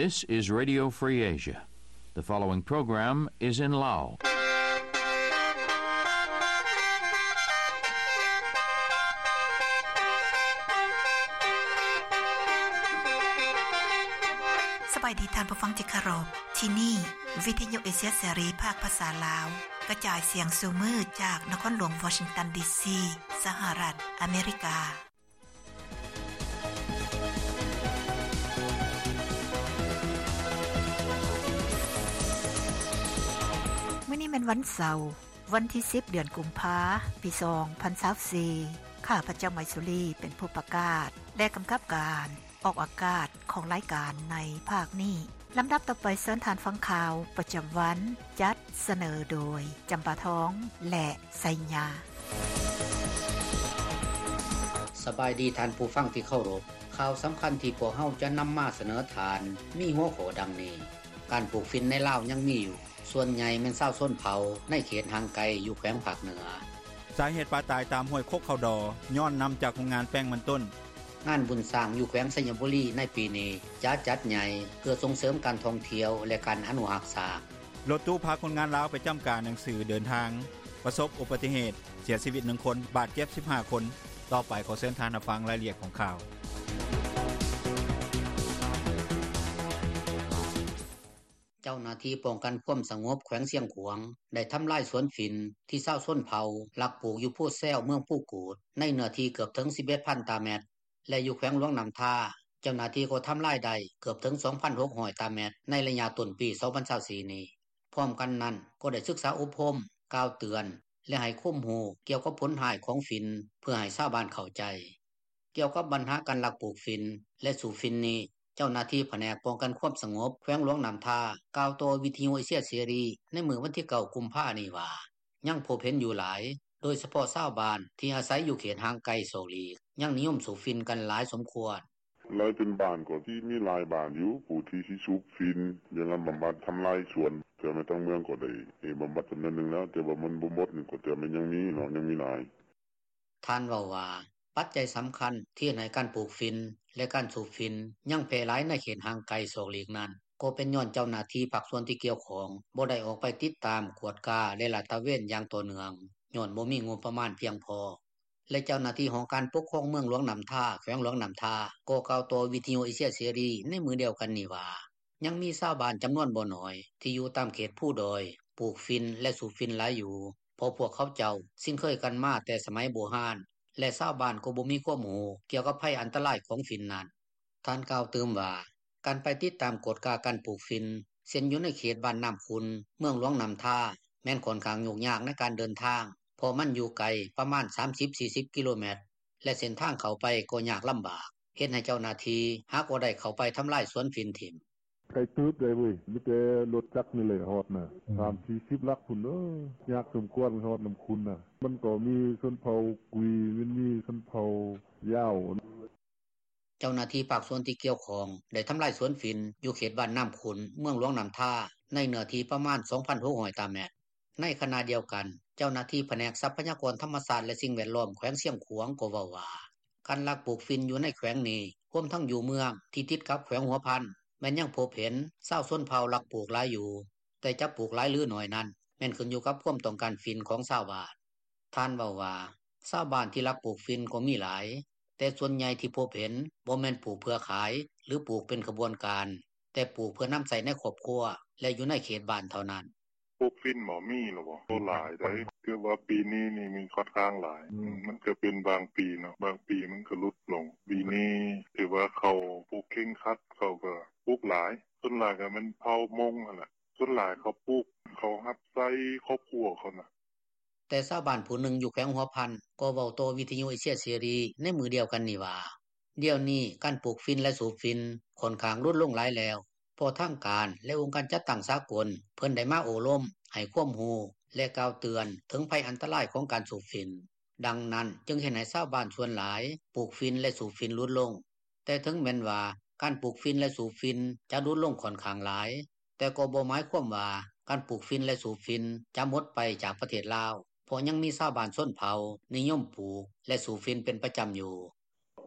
This is Radio Free Asia. The following program is in Lao. ສະບາຍດີທ່ານຜູ້ຟັງທີ່ເຄົາລົບ. ທີ່ນີ້ ວິທະຍຸເອເຊຍເສລີ ພາກພາສາລາວ ກະຈາຍສຽງສູ່ມື້ຈາກນະຄອນຫຼວງວໍຊິງຕັນ ດີຊີ ສະຫະລັດອາເມລິກາ. ມື້ນີ້ແມ່ນວັນເສົາ, ວັນທີສິບ ເດືອນກຸມພາ ປີສອງພັນຊາວສີ່. ຂ້າພະເຈົ້າ ໄມສຸລີ ເປັນຜູ້ປະກາດ ແລະ ກຳກັບການອອກອາກາດຂອງລາຍການໃນພາກນີ້. ລຳດັບຕໍ່ໄປ ເຊີນທ່ານຟັງຂ່າວປະຈຳວັນ ຈັດສະເໜີໂດຍ ຈຳປາທອງ ແລະ ໄຊຍາ. ສະບາຍດີທ່ານຜູ້ຟັງທີ່ເຄົາລົບ. ຂ່າວສຳຄັນທີ່ພວກເຮົາຈະນຳມາສະເໜີທ່ານ ມີຫົວຂໍ້ດັ່ງນີ້: ການປູກຝິ່ນໃນລາວຍັງມີຢູ່, ສ່ວນໃຫຍ່ແມ່ນຊາວຊົນເຜົ່າໃນເຂດຫ່າງໄກຢູ່ແຂວງພາກເໜືອ. ສາເຫດປາຕາຍຕາມຫ້ວຍຄົກເຂົ້າດໍ ຍ້ອນນ້ຳຈາກໂຮງງານແປ້ງມັນຕົ້ນ. ງານບຸນຊ້າງຢູ່ແຂວງໄຊຍະບູລີໃນປີນີ້ຈະຈັດໃຫຍ່ ເພື່ອສົ່ງເສີມການທ່ອງທ່ຽວ ແລະ ການອະນຸຮັກຊ້າງ. ລົດຕູ້ພາຄົນງານລາວໄປຈ້ຳກາໜັງສືເດີນທາງ ປະສົບອຸບັດຕິເຫດ ເສຍຊີວິດໜຶ່ງຄົນ ບາດເຈັບສິບຫ້າຄົນ. ຕໍ່ໄປຂໍເຊີນທ່ານຮັບຟັງລາຍລະອຽດຂອງຂ່າວ. ເຈົ້າໜ້າທີ່ປ້ອງກັນຄວາມສະຫງົບແຂວງຊຽງຂວາງ ໄດ້ທຳລາຍສວນຝິ່ນທີ່ຊາວຊົນເຜົ່າລັກປູກຢູ່ພູແຊວ ເມືອງພູກູດ ໃນເນື້ອທີ່ເກືອບເຖິງສິບເອັດພັນຕາແມັດ ແລະ ຢູ່ແຂວງຫຼວງນ້ຳທາ ເຈົ້າໜ້າທີ່ກໍທຳລາຍໄດ້ເກືອບເຖິງສອງພັນຫົກຮ້ອຍຕາແມັດ ໃນໄລຍະຕົ້ນປີສອງພັນຊາວສີ່ນີ້. ພ້ອມກັນນັ້ນກໍໄດ້ສຶກສາອົບຮົມ, ກ່າວເຕືອນ ແລະ ໃຫ້ຄວາມຮູ້ກ່ຽວກັບຜົນຮ້າຍຂອງຝິ່ນ ເພື່ອໃຫ້ຊາວບ້ານເຂົ້າໃຈ. ກ່ຽວກັບບັນຫາການລັກປູກຝິ່ນ ແລະ ສູບຝິ່ນນີ້ ເຈົ້າໜ້າທີ່ພະແນກປ້ອງກັນຄວາມສະຫງົບແຂວງຫຼວງນ້ຳທາ ກ່າວຕໍ່ວິທະຍຸເອເຊຍເສລີໃນມື້ວັນທີເກົ້າ ກຸມພານີ້ວ່າ ຍັງພົບເຫັນຢູ່ຫຼາຍ, ໂດຍສະເພາະຊາວບ້ານທີ່ອາໄສຢູ່ເຂດຫ່າງໄກສອກຫຼີກ ຍັງນິຍົມສູບຝິ່ນກັນຫຼາຍສົມຄວນ. ຫຼາຍເປັນບ້ານກໍຊິມີຫຼາຍບ້ານຢູ່ ຜູ້ທີ່ຊິສູບຝິ່ນ ຢ່າງນັ້ນບຳບັດທຳລາຍສວນ ແຕ່ແມ່ນທາງເມືອງກໍໄດ້ໃຫ້ບຳບັດຈຳນວນໜຶ່ງແລ້ວ ແຕ່ວ່າມັນບໍ່ໝົດນີ້ ກໍແຕ່ແມ່ນຍັງມີເນາະ ຍັງມີຫຼາຍ. ທ່ານເວົ້າວ່າ ປັດໄຈສຳຄັນທີ່ເຮັດໃຫ້ການປູກຝິ່ນ ແລະ ການສູບຝິ່ນຍັງແຜ່ຫຼາຍໃນເຂດຫ່າງໄກສອກຫຼີກນັ້ນ ກໍເປັນຍ້ອນເຈົ້າໜ້າທີ່ພາກສ່ວນທີ່ກ່ຽວຂ້ອງບໍ່ໄດ້ອອກໄປຕິດຕາມ, ກວດກາ ແລະ ລາດຕະເວນຢ່າງຕໍ່ເນື່ອງ ຍ້ອນບໍ່ມີງົບປະມານພຽງພໍ. ແລະ ເຈົ້າໜ້າທີ່ຫ້ອງການປົກຄອງເມືອງຫຼວງນ້ຳທາ ແຂວງຫຼວງນ້ຳທາ ກໍກ່າວຕໍ່ວິທະຍຸເອເຊຍເສລີໃນມື້ດຽວກັນນີ້ວ່າ ຍັງມີຊາວບ້ານຈຳນວນບໍ່ໜ້ອຍທີ່ຢູ່ຕາມເຂດພູດອຍ ປູກຝິ່ນ ແລະ ສູບຝິ່ນຫຼາຍຢູ່ ເພາະພວກເຂົາເຈົ້າຊິນເຄີຍກັນມາແຕ່ສະໄໝບູຮານ ແລະ ຊາວບ້ານກໍບໍ່ມີຄວາມຮູ້ກ່ຽວກັບໄພອັນຕະລາຍຂອງຝິ່ນນັ້ນ. ທ່ານກ່າວຕື່ມວ່າ ການໄປຕິດຕາມກວດກາການປູກຝິ່ນ ເຊັ່ນຢູ່ໃນເຂດບ້ານນ້ຳຂຸ່ນ ເມືອງຫຼວງນ້ຳທາ ແມ່ນຂ້ອນຂ້າງຫຍຸ້ງຍາກໃນການເດີນທາງ ເພາະມັນຢູ່ໄກປະມານສາມສິບ ສີ່ສິບກິໂລແມັດ ແລະ ເສັ້ນທາງເຂົ້າໄປກໍຍາກລຳບາກ ເຮັດໃຫ້ເຈົ້າໜ້າທີ່ຫາກໍໄດ້ເຂົ້າໄປທຳລາຍສວນຝິ່ນຖິ້ມ. ໄກເຕີບໃດເວີຍ ມີແຕ່ລົດຈັກນີ້ແຫຼະຮອດນະ ສາມສີ່ສິບຫຼັກພຸ້ນເດີ ຍາກສົມຄວນຮອດນ້ຳຂຸ່ນນະ ມັນກໍມີຊົນເຜົ່າກຸຍ ມັນມີຊົນເຜົ່າຢາວ. ເຈົ້າໜ້າທີ່ພາກສ່ວນທີ່ກ່ຽວຂ້ອງໄດ້ທຳລາຍສວນຝິ່ນຢູ່ເຂດບ້ານນ້ຳຂຸ່ນ ເມືອງຫຼວງນ້ຳທາ ໃນເນື້ອທີ່ປະມານສອງພັນຫົກຮ້ອຍຕາແມັດ. ໃນຂະນະດຽວກັນ ເຈົ້າໜ້າທີ່ພະແນກຊັບພະຍາກອນທຳມະຊາດ ແລະ ສິ່ງແວດລ້ອມແຂວງຊຽງຂວາງກໍເວົ້າວ່າ ການລັກປູກຝິ່ນຢູ່ໃນແຂວງນີ້ ຮວມທັງຢູ່ເມືອງທີ່ຕິດກັບແຂວງຫົວພັນ ແມ່ນຍັງພົບເຫັນຊາວຊົນເຜົ່າລັກປູກຫຼາຍຢູ່, ແຕ່ຈະປູກຫຼາຍຫຼືໜ້ອຍນັ້ນ ແມ່ນຂຶ້ນຢູ່ກັບຄວາມຕ້ອງການຝິ່ນຂອງຊາວບ້ານ. ທ່ານເວົ້າວ່າ ຊາວບ້ານທີ່ລັກປູກຝິ່ນກໍມີຫຼາຍ, ແຕ່ສ່ວນໃຫຍ່ທີ່ພົບເຫັນບໍ່ແມ່ນປູກເພື່ອຂາຍ ຫຼື ປູກເປັນຂະບວນການ, ແຕ່ປູກເພື່ອນຳໃຊ້ໃນຄອບຄົວ ແລະ ຢູ່ໃນເຂດບ້ານເທົ່ານັ້ນ. ປູກຝິ່ນບໍ່ມີແລ້ວບໍ່? ບໍ່ຫຼາຍໃດ ຖືວ່າປີນີ້ນີ້ມີຂ້ອນຂ້າງຫຼາຍ. ອືມ ມັນກະເປັນບາງປີເນາະ, ບາງປີມັນກະຫຼຸດລົງ. ປີນີ້ຖືວ່າເຂົາປູກເຄັ່ງຄັດ, ເຂົາກະປູກຫຼາຍ. ສ່ວນຫຼາຍກະແມ່ນເຜົ່າມົ້ງຫັ້ນແຫຼະ. ສ່ວນຫຼາຍເຂົາປູກ, ເຂົາຮັບໃຊ້ຄອບຄົວເຂົານະ. ແຕ່ຊາວບ້ານຜູ້ໜຶ່ງຢູ່ແຂວງຫົວພັນ ກໍເວົ້າຕໍ່ວິທະຍຸເອເຊຍເສລີໃນມື້ດຽວກັນນີ້ວ່າ ດຽວນີ້ການປູກຝິ່ນ ແລະ ສູບຝິ່ນຂ້ອນຂ້າງຫຼຸດລົງຫຼາຍແລ້ວ ເພາະທາງການ ແລະ ອົງການຈັດຕັ້ງສາກົນ ເພິ່ນໄດ້ມາໂອ້ລົມ, ໃຫ້ຄວາມຮູ້ ແລະ ກ່າວເຕືອນເຖິງໄພອັນຕະລາຍຂອງການສູບຝິ່ນ. ດັ່ງນັ້ນຈຶ່ງເຮັດໃຫ້ຊາວບ້ານສ່ວນຫຼາຍປູກຝິ່ນ ແລະ ສູບຝິ່ນຫຼຸດລົງ. ແຕ່ເຖິງແມ່ນວ່າການປູກຝິ່ນ ແລະ ສູບຝິ່ນຈະຫຼຸດລົງຂ້ອນຂ້າງຫຼາຍ, ແຕ່ກໍບໍ່ໝາຍຄວາມວ່າການປູກຝິ່ນ ແລະ ສູບຝິ່ນຈະໝົດໄປຈາກປະເທດລາວ, ເພາະຍັງມີຊາວບ້ານຊົນເຜົ່ານິຍົມປູກ ແລະ ສູບຝິ່ນເປັນປະຈຳຢູ່.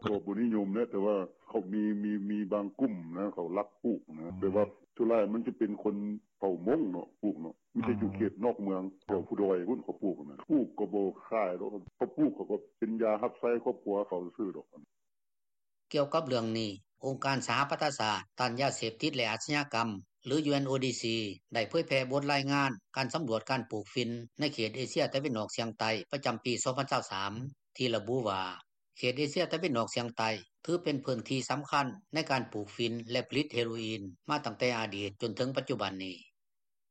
ກໍບໍ່ນິຍົມແຫຼະ ແຕ່ວ່າເຂົາມີ ມີບາງກຸ່ມນ່າ ເຂົາລັກປູກນ່າ ແບບວ່າສ່ວນຫຼາຍມັນຈະເປັນຄົນເຜົ່າມົ້ງເນາະ ປູກເນາະ ມີແຕ່ຢູ່ເຂດນອກເມືອງ ແຖວພູດອຍພຸ້ນເຂົາປູກນ່າ ປູກກໍບໍ່ຂາຍດອກ ເຂົາປູກເຂົາກໍເປັນຢາຮັບໃຊ້ຄອບຄົວເຂົາຊື່ໆດອກ.” ກ່ຽວກັບເລື່ອງນີ້ ອົງການສະຫະປະຊາຊາດ ຕ້ານຢາເສບຕິດ ແລະ ອາຊະຍາກຳ ຫຼື UNODC ໄດ້ເຜີຍແຜ່ບົດລາຍງານ ການສຳຫຼວດການປູກຝິ່ນ ໃນເຂດເອເຊຍຕາເວັນອອກສ່ຽງໃຕ້ ປະຈຳປີ 2023 ທີ່ລະບຸວ່າ ເຂດເອເຊຍຕາເວັນອອກສ່ຽງໃຕ້ ຖືເປັນພື້ນທີ່ສຳຄັນ ໃນການປູກຝິ່ນ ແລະ ຜະລິດເຮໂຣອີນ ມາຕັ້ງແຕ່ອະດີດ ຈົນເຖິງປັດຈຸບັນນີ້.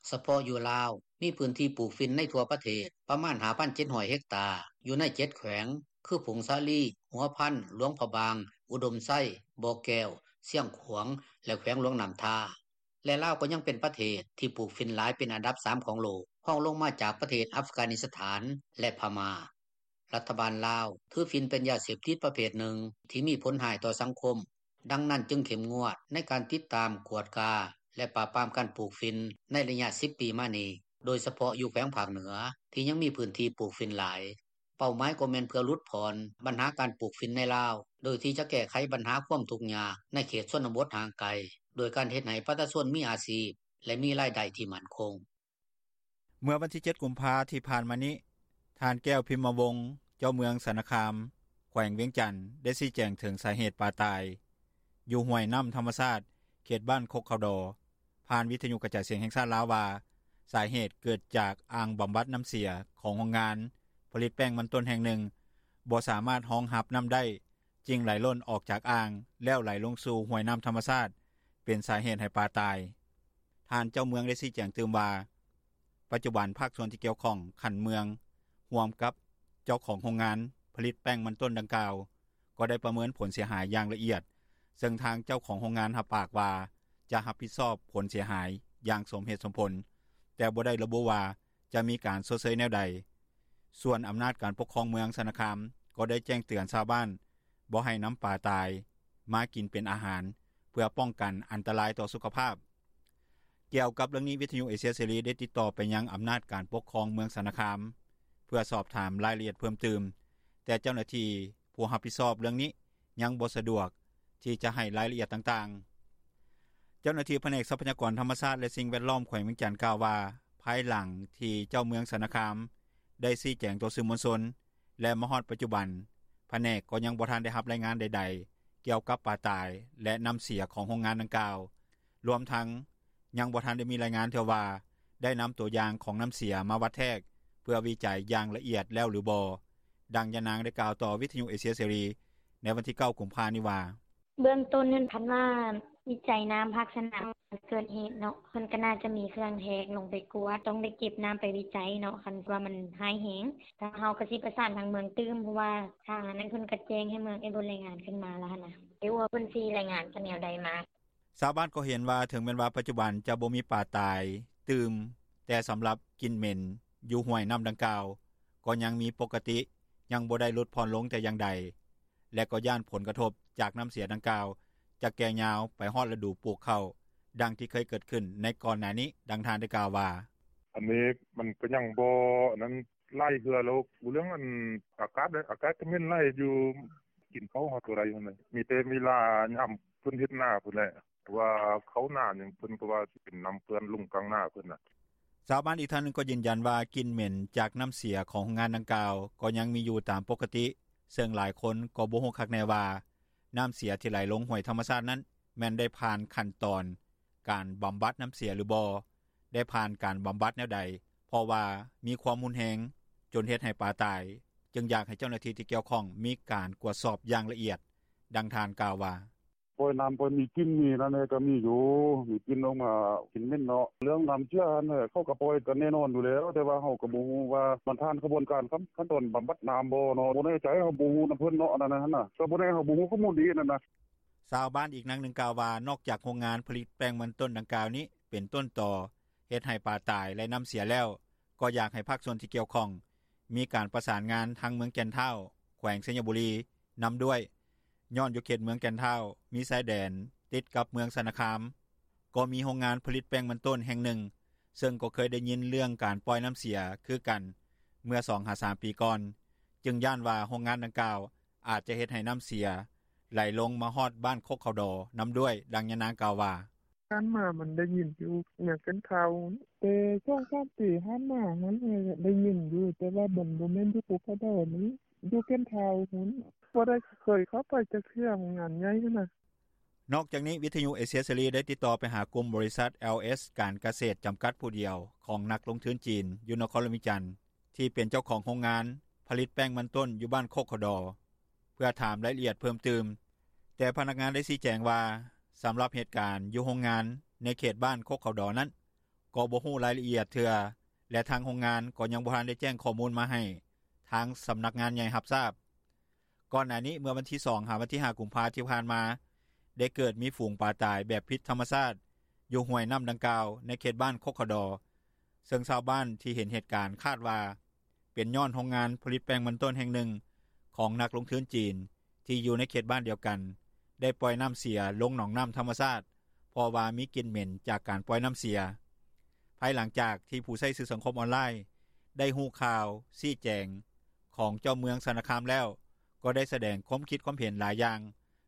ສະເພາະຢູ່ລາວ ມີພື້ນທີ່ປູກຝິ່ນໃນທົ່ວປະເທດ ປະມານ 5,700 ເຮັກຕາ ຢູ່ໃນ 7 ແຂວງ ຄື ຜົ້ງສາລີ, ຫົວພັນ, ຫຼວງພະບາງ, ອຸດົມໄຊ, ບໍ່ແກ້ວ, ຊຽງຂວາງ ແລະ ແຂວງຫຼວງນໍ້າທາ ແລະ ລາວກໍຍັງເປັນປະເທດ ທີ່ປູກຝິ່ນຫຼາຍເປັນອັນດັບ 3 ຂອງໂລກ ຮອງລົງມາຈາກປະເທດອັຟການິສຖານ ແລະ ພະມ້າ. ລັດຖະບານລາວ ຖືຝິ່ນເປັນຢາເສບຕິດປະເພດໜຶ່ງ ທີ່ມີຜົນຮ້າຍຕໍ່ສັງຄົມ ດັ່ງນັ້ນຈຶ່ງເຂັ້ມງວດ ໃນການຕິດຕາມ, ກວດກາ ແລະ ປາບປາມການປູກຝິ່ນ ໃນໄລຍະ 10 ປີມານີ້ ໂດຍສະເພາະຢູ່ແຂວງພາກເໜືອ ທີ່ຍັງມີພື້ນທີ່ປູກຝິ່ນຫຼາຍ. ເປົ້າໝາຍກໍແມ່ນເພື່ອຫຼຸດຜ່ອນ ບັນຫາການປູກຝິ່ນໃນລາວ ໂດຍທີ່ຈະແກ້ໄຂບັນຫາຄວາມທຸກຍາກ ໃນເຂດຊົນນະບົດຫ່າງໄກ ດ້ວຍການເຮັດໃຫ້ປະຊາຊົນມີອາຊີບ ແລະ ມີລາຍໄດ້ທີ່ໝັ້ນຄົງ. ເມື່ອວັນທີ 7 ກຸມພາ ທີ່ຜ່ານມານີ້ ທ່ານ ແກ້ວ ພິມມະວົງ ເຈົ້າເມືອງຊະນະຄາມ ແຂວງວຽງຈັນ ໄດ້ຊີ້ແຈງເຖິງສາເຫດປາຕາຍ ຢູ່ຫ້ວຍນໍ້າທຳມະຊາດ ເຂດບ້ານຄົກເຂົາດໍ ຜ່ານວິທະຍຸກະຈາຍສຽງແຫ່ງຊາດລາວວ່າ ສາເຫດເກີດຈາກອ່າງບຳບັດນໍ້າເສຍ ຂອງໂຮງງານຜະລິດແປ້ງມັນຕົ້ນແຫ່ງໜຶ່ງ ບໍ່ສາມາດຮອງຮັບນໍ້າໄດ້ ຈຶ່ງໄຫຼລົ້ນອອກຈາກອ່າງ ແລ້ວໄຫຼລົງສູ່ຫ້ວຍນໍ້າທຳມະຊາດ ເປັນສາເຫດໃຫ້ປາຕາຍ. ທ່ານເຈົ້າເມືອງໄດ້ຊີ້ແຈງຕື່ມວ່າ ປັດຈຸບັນພາກສ່ວນທີ່ກ່ຽວຂ້ອງຂັ້ນເມືອງ ຮ່ວມກັບເຈົ້າຂອງໂຮງງານຜະລິດແປ້ງມັນຕົ້ນດັ່ງກ່າວ ກໍໄດ້ປະເມີນຜົນເສຍຫາຍຢ່າງລະອຽດ ເຊິ່ງທາງເຈົ້າຂອງໂຮງງານຮັບປາກວ່າ ຈະຮັບຜິດຊອບຜົນເສຍຫາຍຢ່າງສົມເຫດສົມຜົນ ແຕ່ບໍ່ໄດ້ລະບຸວ່າຈະມີການຊົດເຊີຍແນວໃດ. ສ່ວນອຳນາດການປົກຄອງເມືອງຊະນະຄາມ ກໍໄດ້ແຈ້ງເຕືອນຊາວບ້ານ ບໍ່ໃຫ້ນຳປາຕາຍມາກິນເປັນອາຫານ ເພື່ອປ້ອງກັນອັນຕະລາຍຕໍ່ສຸຂະພາບ. ກ່ຽວກັບເລື່ອງນີ້ ວິທະຍຸເອເຊຍເສລີ ໄດ້ຕິດຕໍ່ໄປຍັງອຳນາດການປົກຄອງເມືອງຊະນະຄາມ ເພື່ອສອບຖາມລາຍລະອຽດເພີ່ມຕື່ມ ແຕ່ເຈົ້າໜ້າທີ່ຜູ້ຮັບຜິດຊອບເລື່ອງນີ້ ຍັງບໍ່ສະດວກທີ່ຈະໃຫ້ລາຍລະອຽດຕ່າງໆ. ເຈົ້າໜ້າທີ່ພະແນກຊັບພະຍາກອນທຳມະຊາດ ແລະ ສິ່ງແວດລ້ອມ ແຂວງວຽງຈັນ ກ່າວວ່າ ພາຍຫຼັງທີ່ເຈົ້າເມືອງຊະນະຄາມ ໄດ້ຊີ້ແຈງຕໍ່ສື່ມວນຊົນ ແລະ ມາຮອດປັດຈຸບັນ ພະແນກກໍຍັງບໍ່ທັນໄດ້ຮັບລາຍງານໃດໆ ກ່ຽວກັບປາຕາຍ ແລະ ນໍ້າເສຍຂອງໂຮງງານດັ່ງກ່າວ ລວມທັງຍັງບໍ່ທັນໄດ້ມີລາຍງານເທື່ອວ່າ ໄດ້ນຳຕົວຢ່າງຂອງນໍ້າເສຍມາວັດແທກ ເພື່ອວິໄຈຢ່າງລະອຽດແລ້ວຫຼືບໍ່. ດັ່ງຍານາງໄດ້ກ່າວຕໍ່ວິທະຍຸເອເຊຍເສລີ ໃນວັນທີ 9 ກຸມພານີ້ວ່າ: “ເບື້ອງຕົ້ນຫັ້ນ ຄັນວ່າວິໄຈນໍ້າພາກສະໜາມ ເກີດເຫດເນາະ ເພິ່ນກໍໜ້າຈະມີເຄື່ອງແທກລົງໄປກວດ ຕ້ອງໄດ້ເກັບນໍ້າໄປວິໄຈເນາະ ຄັນວ່າມັນຮ້າຍແຮງ ທາງເຮົາກໍຊິປະສານທາງເມືອງຕື່ມ ເພາະວ່າທາງອັນນັ້ນເພິ່ນກໍແຈ້ງໃຫ້ເມືອງເອໂບລາຍງານຂຶ້ນມາແລ້ວຫັ້ນນ່າ ບໍ່ຮູ້ວ່າເພິ່ນຊິລາຍງານແນວໃດມາ.” ຊາວບ້ານກໍເຫັນວ່າ ເຖິງແມ່ນວ່າປັດຈຸບັນຈະບໍ່ມີປາຕາຍຕື່ມ ແຕ່ສຳລັບກິ່ນເໝັນຢູ່ຫ້ວຍນໍ້າດັ່ງກ່າວ ກໍຍັງມີປົກກະຕິ ຍັງບໍ່ໄດ້ຫຼຸດຜ່ອນລົງແຕ່ຢ່າງໃດ ແລະ ກໍຢ້ານຜົນກະທົບຈາກນໍ້າເສຍດັ່ງກ່າວ ຈະແກ່ຍາວໄປຮອດລະດູປູກເຂົ້າ ດັ່ງທີ່ເຄີຍເກີດຂຶ້ນໃນກ່ອນໜ້ານີ້. ດັ່ງທ່ານໄດ້ກ່າວວ່າ: “ອັນນີ້ມັນກໍຍັງບໍ່ອັນນັ້ນ ຫຼາຍເທື່ອແລ້ວ ເລື່ອງອັນອາກາດເດ້ ອາກາດກໍເໝັນຫຼາຍຢູ່ ກິນເຂົ້າເຮົາບໍ່ໄດ້ຫັ້ນແຫຼະ ມີແຕ່ເວລາຍາມເພິ່ນເຮັດນາພຸ້ນແຫຼະ ວ່າເຂົ້ານາຫຍັງ ເພິ່ນກໍວ່າຊິເປັນນໍ້າເປື້ອນລົງກາງນາເພິ່ນນ່າ.” ຊາວບ້ານອີກທ່ານໜຶ່ງກໍຢືນຢັນວ່າ ກິ່ນເໝັນຈາກນໍ້າເສຍຂອງໂຮງງານດັ່ງກ່າວ ກໍຍັງມີຢູ່ຕາມປົກກະຕິ ເຊິ່ງຫຼາຍຄົນກໍບໍ່ຮູ້ຄັກແນ່ວ່າ ນໍ້າເສຍທີ່ໄຫຼລົງຫ້ວຍທຳມະຊາດນັ້ນ ແມ່ນໄດ້ຜ່ານຂັ້ນຕອນການບຳບັດນໍ້າເສຍຫຼືບໍ່, ໄດ້ຜ່ານການບຳບັດແນວໃດ ເພາະວ່າມີຄວາມຮຸນແຮງຈົນເຮັດໃຫ້ປາຕາຍ ຈຶ່ງຢາກໃຫ້ເຈົ້າໜ້າທີ່ທີ່ກ່ຽວຂ້ອງມີການກວດສອບຢ່າງລະອຽດ. ດັ່ງທ່ານກ່າວວ່າ: “ປ່ອຍນໍ້າ ປ່ອຍມີກິ່ນ ມີອັນນັ້ນແດ່ ກໍມີຢູ່ ມີກິ່ນອອກມາ ກິ່ນເໝັນເນາະ ເລື່ອງນໍ້າເສຍຫັ້ນແຫຼະ ເຂົາກໍປ່ອຍກັນແນ່ນອນຢູ່ແລ້ວ ແຕ່ວ່າເຮົາກໍບໍ່ຮູ້ວ່າ ມັນຜ່ານຂະບວນການຂັ້ນຕອນບຳບັດນໍ້າບໍ່ເນາະ ບໍ່ແນ່ໃຈ ເຮົາບໍ່ຮູ້ນຳເພິ່ນເນາະ ອັນນັ້ນຫັ້ນນ່າ ກໍບໍ່ແນ່ ເຮົາບໍ່ຮູ້ຂໍ້ມູນດີຫັ້ນນ່າ.” ຊາວບ້ານອີກນາງໜຶ່ງກ່າວວ່າ ນອກຈາກໂຮງງານຜະລິດແປ້ງມັນຕົ້ນດັ່ງກ່າວນີ້ ເປັນຕົ້ນຕໍເຮັດໃຫ້ປາຕາຍ ແລະ ນໍ້າເສຍແລ້ວ ກໍຢາກໃຫ້ພາກສ່ວນທີ່ກ່ຽວຂ້ອງ ມີການປະສານງານທາງເມືອງແກ່ນທ້າວ ແຂວງໄຊຍະບູລີ ນຳດ້ວຍ ຍ້ອນຢູ່ເຂດເມືອງແກ່ນທ້າວ ມີຊາຍແດນຕິດກັບເມືອງຊະນະຄາມ ກໍມີໂຮງງານຜະລິດແປ້ງມັນຕົ້ນແຫ່ງໜຶ່ງ ເຊິ່ງກໍເຄີຍໄດ້ຍິນເລື່ອງການປ່ອຍນໍ້າເສຍຄືກັນ ເມື່ອສອງຫາສາມປີກ່ອນ ຈຶ່ງຢ້ານວ່າໂຮງງານດັ່ງກ່າວ ອາດຈະເຮັດໃຫ້ນໍ້າເສຍ ໄຫຼລົງມາຮອດບ້ານຄົກເຂົາດໍນຳດ້ວຍ. ດັ່ງຍານາງກ່າວວ່າ: “ຜ່ານມາມັນໄດ້ຍິນຢູ່ ຍັງເປັນຂ່າວ ແຕ່ສອງສາມປີຜ່ານມາຫັ້ນ ໄດ້ຍິນຢູ່ ແຕ່ວ່າມັນບໍ່ແມ່ນຢູ່ຄົກເຂົາດໍ ມັນຢູ່ແກ່ນທ້າວພຸ້ນ ບໍ່ໄດ້ເຄີຍເຂົ້າໄປຈັກເທື່ອ ໂຮງງານໃຫຍ່ຫັ້ນນະ.” ນອກຈາກນີ້ ວິທຍຸເອເຊຍເສລີ ໄດ້ຕິດຕໍ່ໄປຫາກຸ່ມບໍລິສັດ ແອລເອສ ການກະເສດ ຈຳກັດຜູ້ດຽວ ຂອງນັກລົງທຶນຈີນ ຢູ່ນະຄອນຫຼວງວຽງຈັນ ທີ່ເປັນເຈົ້າຂອງໂຮງງານຜະລິດແປ້ງມັນຕົ້ນ ຢູ່ບ້ານຄົກເຂົາດໍ ເພື່ອຖາມລາຍລະອຽດເພີ່ມຕື່ມ, ແຕ່ພະນັກງານໄດ້ຊີ້ແຈງວ່າ ສຳລັບເຫດການຢູ່ໂຮງງານໃນເຂດບ້ານຄົກເຂົາດໍນັ້ນ ກໍບໍ່ຮູ້ລາຍລະອຽດເທື່ອ ແລະ ທາງໂຮງງານກໍຍັງບໍ່ທັນໄດ້ແຈ້ງຂໍ້ມູນມາໃຫ້ທາງສຳນັກງານໃຫຍ່ຮັບຊາບ. ກ່ອນໜ້ານີ້ ເມື່ອວັນທີສອງ ຫາວັນທີຫ້າ ກຸມພາທີ່ຜ່ານມາ ໄດ້ເກີດມີຝູງປາຕາຍແບບຜິດທຳມະຊາດ ຢູ່ຫ້ວຍນ້ຳດັ່ງກ່າວ ໃນເຂດບ້ານຄົກເຂົາດໍ ເຊິ່ງຊາວບ້ານທີ່ເຫັນເຫດການຄາດວ່າ ເປັນຍ້ອນໂຮງງານຜະລິດແປ້ງມັນຕົ້ນແຫ່ງໜຶ່ງ ຂອງນັກລົງທຶນຈີນ ທີ່ຢູ່ໃນເຂດບ້ານດຽວກັນ ໄດ້ປ່ອຍນ້ຳເສຍລົງໜອງນ້ຳທຳມະຊາດ ເພາະວ່າມີກິ່ນເໝັນຈາກການປ່ອຍນ້ຳເສຍ. ພາຍຫຼັງຈາກທີ່ຜູ້ໃຊ້ສື່ສັງຄົມອອນລາຍ ໄດ້ຮູ້ຂ່າວຊີ້ແຈງຂອງເຈົ້າເມືອງຊະນະຄາມແລ້ວ ກໍໄດ້ສະແດງຄວາມຄິດຄວາມເຫັນຫຼາຍຢ່າງ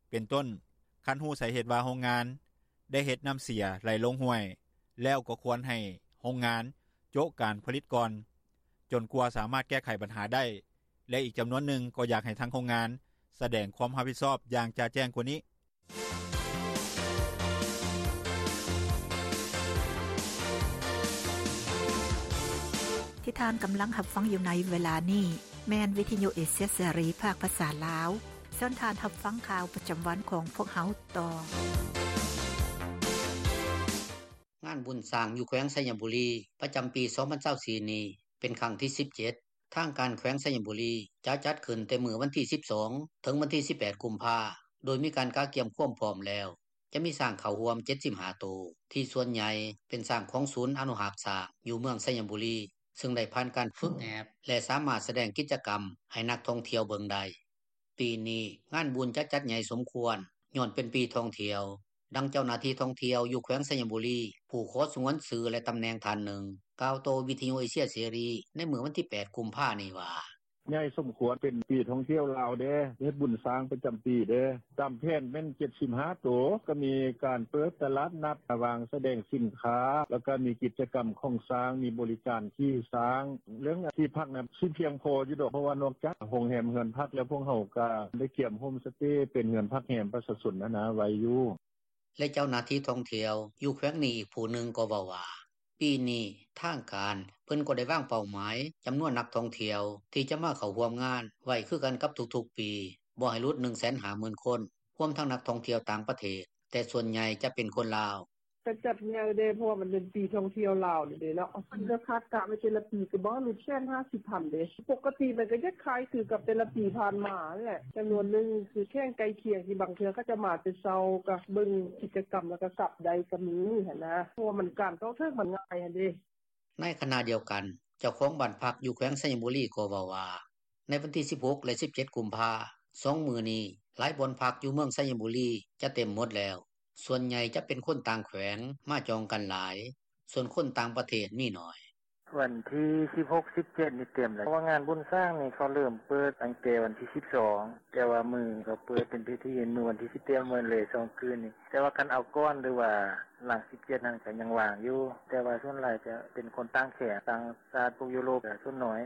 ເປັນຕົ້ນ ຄັນຮູ້ສາເຫດວ່າໂຮງງານໄດ້ເຮັດນ້ຳເສຍໄຫຼລົງຫ້ວຍ ແລ້ວກໍຄວນໃຫ້ໂຮງງານໂຈະການຜະລິດກ່ອນ ຈົນກວ່າສາມາດແກ້ໄຂບັນຫາໄດ້ ແລະ ອີກຈຳນວນໜຶ່ງກໍຢາກໃຫ້ທາງໂຮງງານສະແດງຄວາມຮັບຜິດຊອບຢ່າງຈະແຈ້ງກວ່ານີ້. ທີ່ທ່ານກຳລັງຮັບຟັງຢູ່ໃນເວລານີ້ ແມ່ນວິທຍຸເອເຊຍເສລີ ພາກພາສາລາວ. ເຊີນທ່ານຮັບຟັງຂ່າວປະຈຳວັນຂອງພວກເຮົາຕໍ່. ງານບຸນຊ້າງຢູ່ແຂວງໄຊຍະບູລີ ປະຈຳປີສອງພັນຊາວສີ່ນີ້ ເປັນຄັ້ງທີສິບເຈັດ. ທາງການແຂວງໄຊຍະບູລີ ຈະຈັດຂຶ້ນແຕ່ມື້ວັນທີສິບສອງ ເຖິງວັນທີສິບແປດ ກຸມພາ ໂດຍມີການກະກຽມຄວາມພ້ອມແລ້ວ. ຈະມີຊ້າງເຂົ້າຮ່ວມເຈັດສິບຫ້າໂຕ ທີ່ສ່ວນໃຫຍ່ເປັນຊ້າງຂອງສູນອະນຸຮັກຊ້າງຢູ່ເມືອງໄຊຍະບູລີ ເຊິ່ງໄດ້ຜ່ານການຝຶກແອບ ແລະ ສາມາດສະແດງກິດຈະກຳໃຫ້ນັກທ່ອງທ່ຽວເບິ່ງໄດ້. ປີນີ້ງານບຸນຈະຈັດໃຫຍ່ສົມຄວນ ຍ້ອນເປັນປີທ່ອງທ່ຽວ. ດັ່ງເຈົ້າໜ້າທີ່ທ່ອງທ່ຽວຢູ່ແຂວງໄຊຍະບູລີ ຜູ້ຂໍສະຫງວນຊື່ ແລະ ຕຳແໜ່ງທ່ານໜຶ່ງ ກ່າວຕໍ່ວິທຍຸເອເຊຍເສລີ ໃນມື້ວັນທີແປດ ກຸມພານີ້ວ່າ: “ໃຫຍ່ສົມຄວນ ເປັນປີທ່ອງທ່ຽວລາວເດ້ ເຮັດບຸນຊ້າງປະຈຳປີເດ້. ຕາມແຜນແມ່ນເຈັດສິບຫ້າໂຕ ກໍມີການເປີດຕະຫຼາດນັດ ວາງສະແດງສິນຄ້າ ແລ້ວກໍມີກິດຈະກຳຂອງຊ້າງ ມີບໍລິການຂີ່ຊ້າງ. ເລື່ອງທີ່ພັກນະ ຊິພຽງພໍຢູ່ດອກ ເພາະວ່ານອກຈາກໂຮງແຮມເຮືອນພັກແລ້ວ ພວກເຮົາກໍໄດ້ກຽມໂຮມສະເຕ ເປັນເຮືອນພັກແຮມປະຊາຊົນຫັ້ນນະ ໄວ້ຢູ່.” ແລະ ເຈົ້າໜ້າທີ່ທ່ອງທ່ຽວຢູ່ແຂວງນີ້ອີກຜູ້ໜຶ່ງກໍເວົ້າວ່າ ປີນີ້ທາງການເພິ່ນກໍໄດ້ວາງເປົ້າໝາຍຈຳນວນນັກທ່ອງທ່ຽວທີ່ຈະມາເຂົ້າຮ່ວມງານໄວ້ຄືກັນກັບທຸກໆປີ ບໍ່ໃຫ້ຫຼຸດໜຶ່ງແສນຫ້າໝື່ນຄົນ ຮວມທັງນັກທ່ອງທ່ຽວຕ່າງປະເທດ ແຕ່ສ່ວນໃຫຍ່ຈະເປັນຄົນລາວ. “ກະຈັດໃຫຍ່ເດ້ ເພາະວ່າມັນເປັນປີທ່ອງທ່ຽວລາວນີ້ເດ້ເນາະ ເພິ່ນກະຄາດກະໄວ້ແຕ່ລະປີ ກະບໍ່ໃຫ້ຫຼຸດແສນຫ້າສິບພັນເດ້. ປົກກະຕິມັນກະຈະຄ້າຍຄືກັບແຕ່ລະປີຜ່ານມາຫັ້ນແຫຼະ ຈຳນວນໜຶ່ງຄືແຂວງໃກ້ຄຽງ ທີ່ບາງເທື່ອເຂົາເຈົ້າມາແຕ່ເຊົ້າ ກະເບິ່ງກິດຈະກຳ ແລ້ວກະກັບໄດ້ກະມີຫັ້ນນະ ເພາະວ່າການເຂົ້າເຖິງມັນງ່າຍຫັ້ນເດ້.” ໃນຂະນະດຽວກັນ ເຈົ້າຂອງບ້ານພັກຢູ່ແຂວງໄຊຍະບູລີກໍເວົ້າວ່າ ໃນວັນທີສິບຫົກ ແລະ ສິບເຈັດ ກຸມພາ ສອງມື້ນີ້ ຫຼາຍບ່ອນພັກຢູ່ເມືອງໄຊຍະບູລີຈະເຕັມໝົດແລ້ວ ສ່ວນໃຫຍ່ຈະເປັນຄົນຕ່າງແຂວງມາຈອງກັນຫຼາຍ ສ່ວນຄົນຕ່າງປະເທດມີໜ້ອຍ. “ວັນທີສິບຫົກ ສິບເຈັດນີ້ເຕັມແລ້ວ ເພາະວ່າງານບຸນຊ້າງນີ້ ເຂົາເລີ່ມເປີດຕັ້ງແຕ່ວັນທີສິບສອງ ແຕ່ວ່າມື້ເຂົາເປີດເປັນພິທີມື້ວັນທີສິບ ເຕັມໝົດເລີຍສອງຄືນນີ້ ແຕ່ວ່າຄັນເອົາກ່ອນ ຫຼືວ່າຫຼັງສິບເຈັດຫັ້ນ ກະຍັງວ່າງຢູ່ ແຕ່ວ່າສ່ວນຫຼາຍຈະເປັນຄົນຕ່າງແຂວງ ຕ່າງຊາດ ພວກຢູໂຣບ ກະສ່ວນໜ້ອຍ.”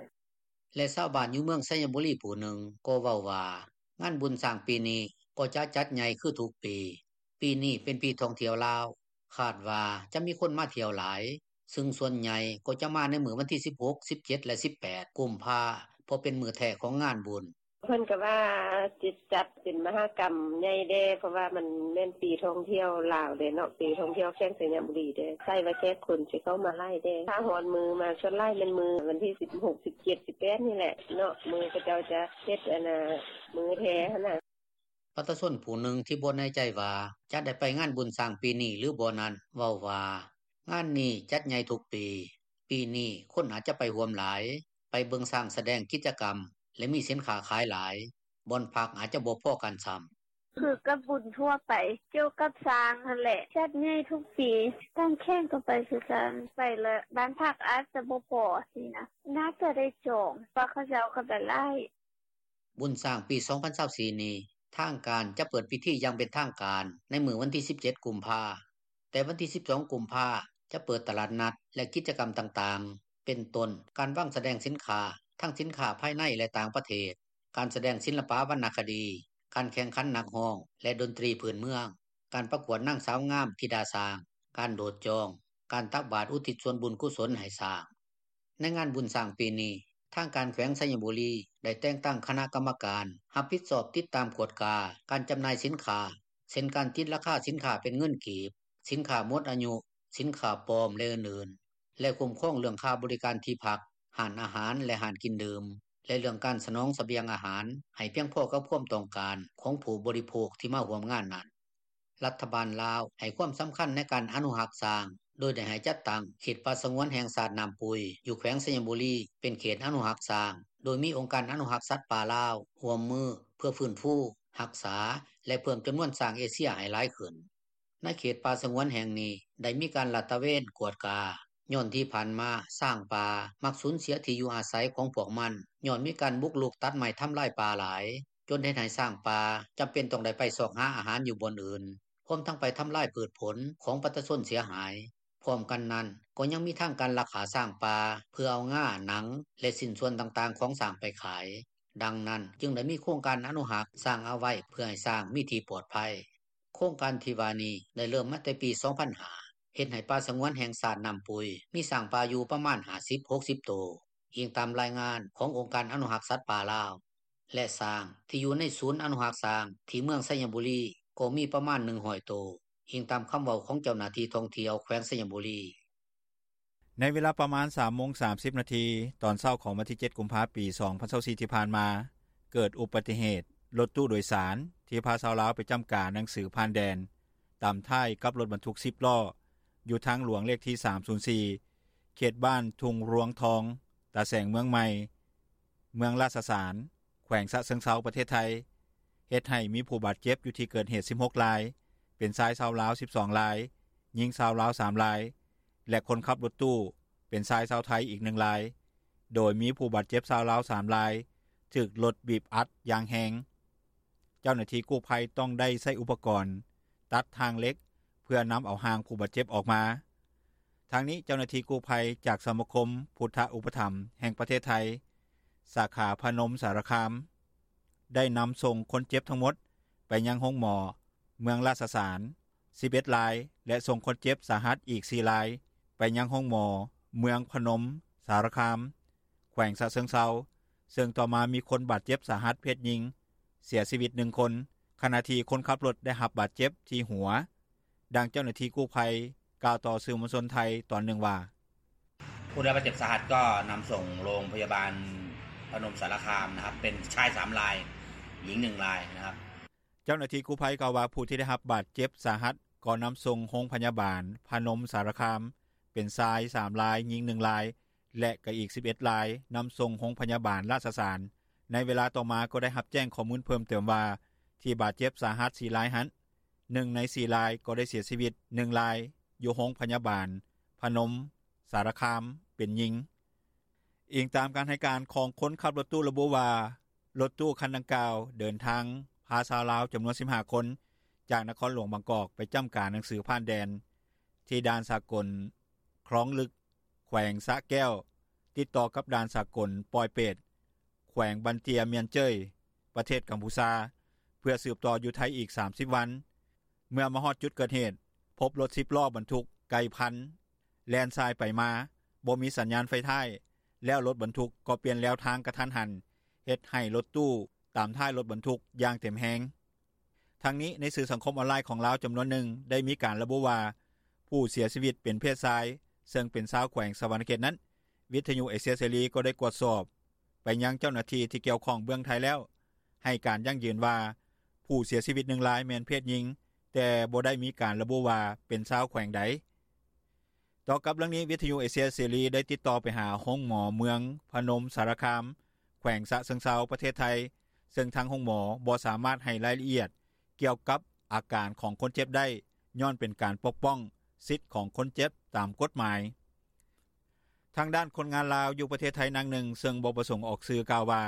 ແລະ ຊາວບ້ານຢູ່ເມືອງໄຊຍະບູລີຜູ້ໜຶ່ງກໍເວົ້າວ່າ ງານບຸນຊ້າງປີນີ້ກໍຈະຈັດໃຫຍ່ຄືທຸກປີ. ປີນີ້ເປັນປີທ່ອງທ່ຽວລາວ ຄາດວ່າຈະມີຄົນມາທ່ຽວຫຼາຍ ເຊິ່ງສ່ວນໃຫຍ່ກໍຈະມາໃນມື້ວັນທີສິບຫົກ ສິບເຈັດ ແລະ ສິບແປດ ກຸມພາ ເພາະເປັນມື້ແທ້ຂອງງານບຸນ. “ເພິ່ນກະວ່າຊິຈັດເປັນມະຫາກຳໃຫຍ່ແດ່ ເພາະວ່າມັນແມ່ນປີທ່ອງທ່ຽວລາວເດ້ເນາະ ປີທ່ອງທ່ຽວແຂວງໄຊຍະບູລີເດ້ ໃສ່ວ່າແຂກຄົນຊິເຂົ້າມາຫຼາຍແດ່ ຖ້າຮອດມື້ມາ ສ່ວນຫຼາຍແມ່ນມື້ວັນທີສິບຫົກ ສິບເຈັດ ສິບແປດນີ້ແຫຼະເນາະ ມື້ເຂົາເຈົ້າຈະເຮັດອັນນ່າ ມື້ແທ້ຫັ້ນນະ.” ປະຊາຊົນຜູ້ໜຶ່ງທີ່ບໍ່ແນ່ໃຈວ່າຈະໄດ້ໄປງານບຸນຊ້າງປີນີ້ ຫຼືບໍ່ນັ້ນ ເວົ້າວ່າ ງານນີ້ຈັດໃຫຍ່ທຸກປີ ປີນີ້ຄົນອາດຈະໄປຮ່ວມຫຼາຍ ໄປເບິ່ງຊ້າງສະແດງກິດຈະກຳ ແລະ ມີສິນຄ້າຂາຍຫຼາຍ ບ່ອນພັກອາດຈະບໍ່ພໍກັນຊ້ຳ. “ຄືກັບບຸນທົ່ວໄປ ກ່ຽວກັບຊ້າງຫັ້ນແຫຼະ ຈັດໃຫຍ່ທຸກປີ ຕ່າງແຂວງກະໄປຄືກັນ ໄປແລ້ວບ້ານພັກອາດຈະບໍ່ພໍຊີ້ນະ ໜ້າຈະໄດ້ຈອງ ເພາະເຂົາເຈົ້າກະໄປຫຼາຍ.” ບຸນຊ້າງປີສອງພັນຊາວສີ່ນີ້ ທາງການຈະເປີດພິທີຢ່າງເປັນທາງການ ໃນມື້ວັນທີ ສິບເຈັດ ກຸມພາ. ແຕ່ວັນທີ ສິບສອງ ກຸມພາ ຈະເປີດຕະຫຼາດນັດ ແລະ ກິດຈະກຳຕ່າງໆ ເປັນຕົ້ນ ການວາງສະແດງສິນຄ້າ ທັງສິນຄ້າພາຍໃນ ແລະ ຕ່າງປະເທດ, ການສະແດງສິລປະວັນນະຄະດີ, ການແຂ່ງຂັນນັກຮ້ອງ ແລະ ດົນຕີພື້ນເມືອງ, ການປະກວດນາງສາວງາມທິດາຊ້າງ, ການໂດດຈອງ, ການຕັກບາດອຸທິດສ່ວນບຸນກຸສົນໃຫ້ຊ້າງ. ໃນງານບຸນຊ້າງປີນີ້, ທາງການແຂວງໄຊຍະບູລີ ໄດ້ແຕ່ງຕັ້ງຄະນະກຳມະການ ຮັບຜິດຊອບຕິດຕາມກວດກາ ການຈຳໜ່າຍສິນຄ້າ ເຊັ່ນ ການຕິດລາຄາສິນຄ້າເປັນເງິນກີບ, ສິນຄ້າໝົດອາຍຸ, ສິນຄ້າປອມ ແລະ ອື່ນໆ ແລະ ຄຸ້ມຄອງເລື່ອງຄ່າບໍລິການທີ່ພັກ, ຮ້ານອາຫານ ແລະ ຮ້ານກິນດື່ມ ແລະ ເລື່ອງການສະໜອງສະບຽງອາຫານ ໃຫ້ພຽງພໍກັບຄວາມຕ້ອງການ ຂອງຜູ້ບໍລິໂພກທີ່ມາຮ່ວມງານນັ້ນ. ລັດຖະບານລາວໃຫ້ຄວາມສຳຄັນໃນການອະນຸຮັກຊ້າງ ໂດຍໄດ້ໃຫ້ຈັດຕັ້ງເຂດປ່າສະຫງວນແຫ່ງຊາດນ້ຳປຸຍ ຢູ່ແຂວງໄຊຍະບູລີ ເປັນເຂດອະນຸຮັກຊ້າງ ໂດຍມີອົງການອະນຸຮັກສັດປ່າລາວ ຮ່ວມມືເພື່ອຟື້ນຟູ, ຮັກສາ ແລະ ເພີ່ມຈຳນວນຊ້າງເອເຊຍໃຫ້ຫຼາຍຂຶ້ນ. ໃນເຂດປ່າສະຫງວນແຫ່ງນີ້ ໄດ້ມີການລາດຕະເວນກວດກາ ຍ້ອນທີ່ຜ່ານມາຊ້າງປ່າມັກສູນເສຍທີ່ຢູ່ອາໄສຂອງພວກມັນ ຍ້ອນມີການບຸກລຸກຕັດໄມ້ທຳລາຍປ່າຫຼາຍ ຈົນເຮັດໃຫ້ຊ້າງປ່າຈຳເປັນຕ້ອງໄດ້ໄປຊອກຫາອາຫານຢູ່ບ່ອນອື່ນ, ຮວມທັງໄປທຳລາຍພືດຜົນຂອງປະຊາຊົນເສຍຫາຍ. ພ້ອມກັນນັ້ນ ກໍຍັງມີທາງການລັກຂ້າຊ້າງປ່າ ເພື່ອເອົາງາ, ໜັງ ແລະ ຊິ້ນສ່ວນຕ່າງໆຂອງຊ້າງໄປຂາຍ. ດັ່ງນັ້ນ ຈຶ່ງໄດ້ມີໂຄງການອະນຸຮັກຊ້າງເອົາໄວ້ ເພື່ອໃຫ້ຊ້າງມີທີ່ປອດໄພ. ໂຄງການທີ່ວ່ານີ້ໄດ້ເລີ່ມມາແຕ່ປີ ສອງພັນຫ້າ ເຮັດໃຫ້ປ່າສະຫງວນແຫ່ງຊາດນ້ຳປຸຍ ມີຊ້າງປ່າຢູ່ປະມານ ຫ້າສິບ ຫົກສິບ ໂຕ, ອີງຕາມລາຍງານຂອງອົງການອະນຸຮັກສັດປ່າລາວ. ແລະ ຊ້າງທີ່ຢູ່ໃນສູນອະນຸຮັກຊ້າງທີ່ເມືອງໄຊຍະບູລີ ກໍມີປະມານ ໜຶ່ງຮ້ອຍ ໂຕ, ອີງຕາມຄຳເວົ້າຂອງເຈົ້າໜ້າທີ່ທ່ອງທ່ຽວແຂວງໄຊຍະບູລີ. ໃນເວລາປະມານ ສາມໂມງສາມສິບນາທີ ຕອນເຊົ້າຂອງວັນທີ ເຈັດ ກຸມພາ ປີ ສອງພັນຊາວສີ່ ທີ່ຜ່ານມາ, ເກີດອຸບັດຕິເຫດ ລົດຕູ້ໂດຍສານ ທີ່ພາຊາວລາວໄປຈ້ຳກາໜັງສືຜ່ານແດນ ຕຳທ້າຍກັບລົດບັນທຸກ ສິບລໍ້ ຢູ່ທາງຫຼວງເລກທີ ສາມສູນສີ່ ເຂດບ້ານທຸ່ງລວງທອງ, ຕາແສງເມືອງໃໝ່, ເມືອງລາຊະສານ, ແຂວງຊະເຊີງເຊົາ ປະເທດໄທ, ເຮັດໃຫ້ມີຜູ້ບາດເຈັບຢູ່ທີ່ເກີດເຫດ ສິບຫົກລາຍ, ເປັນຊາຍຊາວລາວ ສິບສອງລາຍ, ຍິງຊາວລາວ ສາມລາຍ ແລະ ຄົນຂັບລົດຕູ້ ເປັນຊາຍຊາວໄທອີກ ໜຶ່ງລາຍ, ໂດຍມີຜູ້ບາດເຈັບຊາວລາວ ສາມລາຍ ຖືກລົດບີບອັດຢ່າງແຮງ. ເຈົ້າໜ້າທີ່ກູ້ໄພຕ້ອງໄດ້ໃຊ້ອຸປະກອນຕັດທາງເຫຼັກ ເພື່ອນຳເອົາຮ່າງຜູ້ບາດເຈັບອອກມາ. ທາງນີ້ ເຈົ້າໜ້າທີ່ກູ້ໄພຈາກສະມາຄົມພຸດທະອຸປະຖຳແຫ່ງປະເທດໄທ ສາຂາພະນົມສາລະຄາມ ໄດ້ນຳສົ່ງຄົນເຈັບທັງໝົດໄປຍັງໂຮງໝໍເມືອງລາຊະສານ ສິບເອັດລາຍ ແລະ ສົ່ງຄົນເຈັບສາຫັດອີກ ສີ່ລາຍ ໄປຍັງໂຮງໝໍເມືອງພະນົມສາລະຄາມ ແຂວງຊະເຊີງເຊົາ, ເຊິ່ງຕໍ່ມາມີຄົນບາດເຈັບສາຫັດເພດຍິງເສຍຊີວິດ ໜຶ່ງຄົນ, ຂະນະທີ່ຄົນຂັບລົດໄດ້ຮັບບາດເຈັບທີ່ຫົວ. ດັ່ງເຈົ້າໜ້າທີ່ກູ້ໄພກ່າວຕໍ່ສື່ມວນຊົນໄທຕອນໜຶ່ງວ່າ: ຜູ້ได้รับบาดเจ็บสาหัสก็นำส่งโรงพยาบาลพนมสารคามนะครับ เป็นชายสามราย หญิงหนึ่งรายนะครับ. ເຈົ້າໜ້າທີ່ກູ້ໄພກ່າວວ່າ ຜູ້ທີ່ໄດ້ຮັບບາດເຈັບສາຫັດກໍນຳສົ່ງໂຮງພະຍາບານພະນົມສາລະຄາມ ເປັນຊາຍສາມລາຍ, ຍິງໜຶ່ງລາຍ ແລະ ກໍອີກສິບເອັດລາຍ ນຳສົ່ງໂຮງພະຍາບານລາຊະສານ. ໃນເວລາຕໍ່ມາກໍໄດ້ຮັບແຈ້ງຂໍ້ມູນເພີ່ມເຕີມວ່າ ທີ່ບາດເຈັບສາຫັດສີ່ລາຍຫັ້ນ ໜຶ່ງໃນສີ່ລາຍກໍໄດ້ເສຍຊີວິດ, ໜຶ່ງລາຍຢູ່ໂຮງພະຍາບານພະນົມສາລະຄາມ ເປັນຍິງ. ອີງຕາມການໃຫ້ການຂອງຄົນຂັບລົດຕູ້ລະບຸວ່າ ລົດຕູ້ຄັນດັ່ງກ່າວເດີນທາງພາຊາວລາວຈຳນວນສິບຫ້າຄົນ ຈາກນະຄອນຫຼວງບາງກອກໄປຈ້ຳກາໜັງສືຜ່ານແດນ ທີ່ດ່ານສາກົນຄລອງລຶກ ແຂວງສະແກ້ວ ຕິດຕໍ່ກັບດ່ານສາກົນປອຍເປດ ແຂວງບັນເຕຍມຽນເຈີຍ ປະເທດກຳພູຊາ ເພື່ອສືບຕໍ່ຢູ່ໄທອີກສາມສິບວັນ. ເມື່ອມາຮອດຈຸດເກີດເຫດ ພົບລົດສິບລໍ້ບັນທຸກໄກ່ພັນ ແລ່ນສາຍໄປມາ ບໍ່ມີສັນຍານໄຟທ້າຍ ແລ້ວລົດບັນທຸກກໍປ່ຽນແລວທາງກະທັນຫັນ ເຮັດໃຫ້ລົດຕູ້ຕາມທ້າຍລົດບັນທຸກຢ່າງເຕັມແຮງ. ທັງນີ້ ໃນສື່ສັງຄົມອອນລາຍຂອງລາວຈຳນວນໜຶ່ງ ໄດ້ມີການລະບຸວ່າ ຜູ້ເສຍຊີວິດເປັນເພດຊາຍ ເຊິ່ງເປັນຊາວແຂວງສະຫວັນນະເຂດນັ້ນ ວິທະຍຸເອເຊຍເສລີກໍໄດ້ກວດສອບໄປຍັງເຈົ້າໜ້າທີ່ທີ່ກ່ຽວຂ້ອງເບື້ອງໄທແລ້ວ ໃຫ້ການຢັ້ງຢືນວ່າ ຜູ້ເສຍຊີວິດໜຶ່ງລາຍແມ່ນເພດຍິງ, ແຕ່ບໍ່ໄດ້ມີການລະບຸວ່າເປັນຊາວແຂວງໃດ. ຕໍ່ກັບເລື່ອງນີ້, ວິທະຍຸເອເຊຍເສລີໄດ້ຕິດຕໍ່ໄປຫາໂຮງໝໍເມືອງພະນົມສາລະຄາມ ແຂວງສະເຊີງເຊົາ ປະເທດໄທ, ເຊິ່ງທາງໂຮງໝໍບໍ່ສາມາດໃຫ້ລາຍລະອຽດກ່ຽວກັບອາການຂອງຄົນເຈັບໄດ້, ຍ້ອນເປັນການປົກປ້ອງສິດຂອງຄົນເຈັບຕາມກົດໝາຍ. ທາງດ້ານຄົນງານລາວຢູ່ປະເທດໄທນາງໜຶ່ງ ເຊິ່ງບໍ່ປະສົງອອກຊື່ ກ່າວວ່າ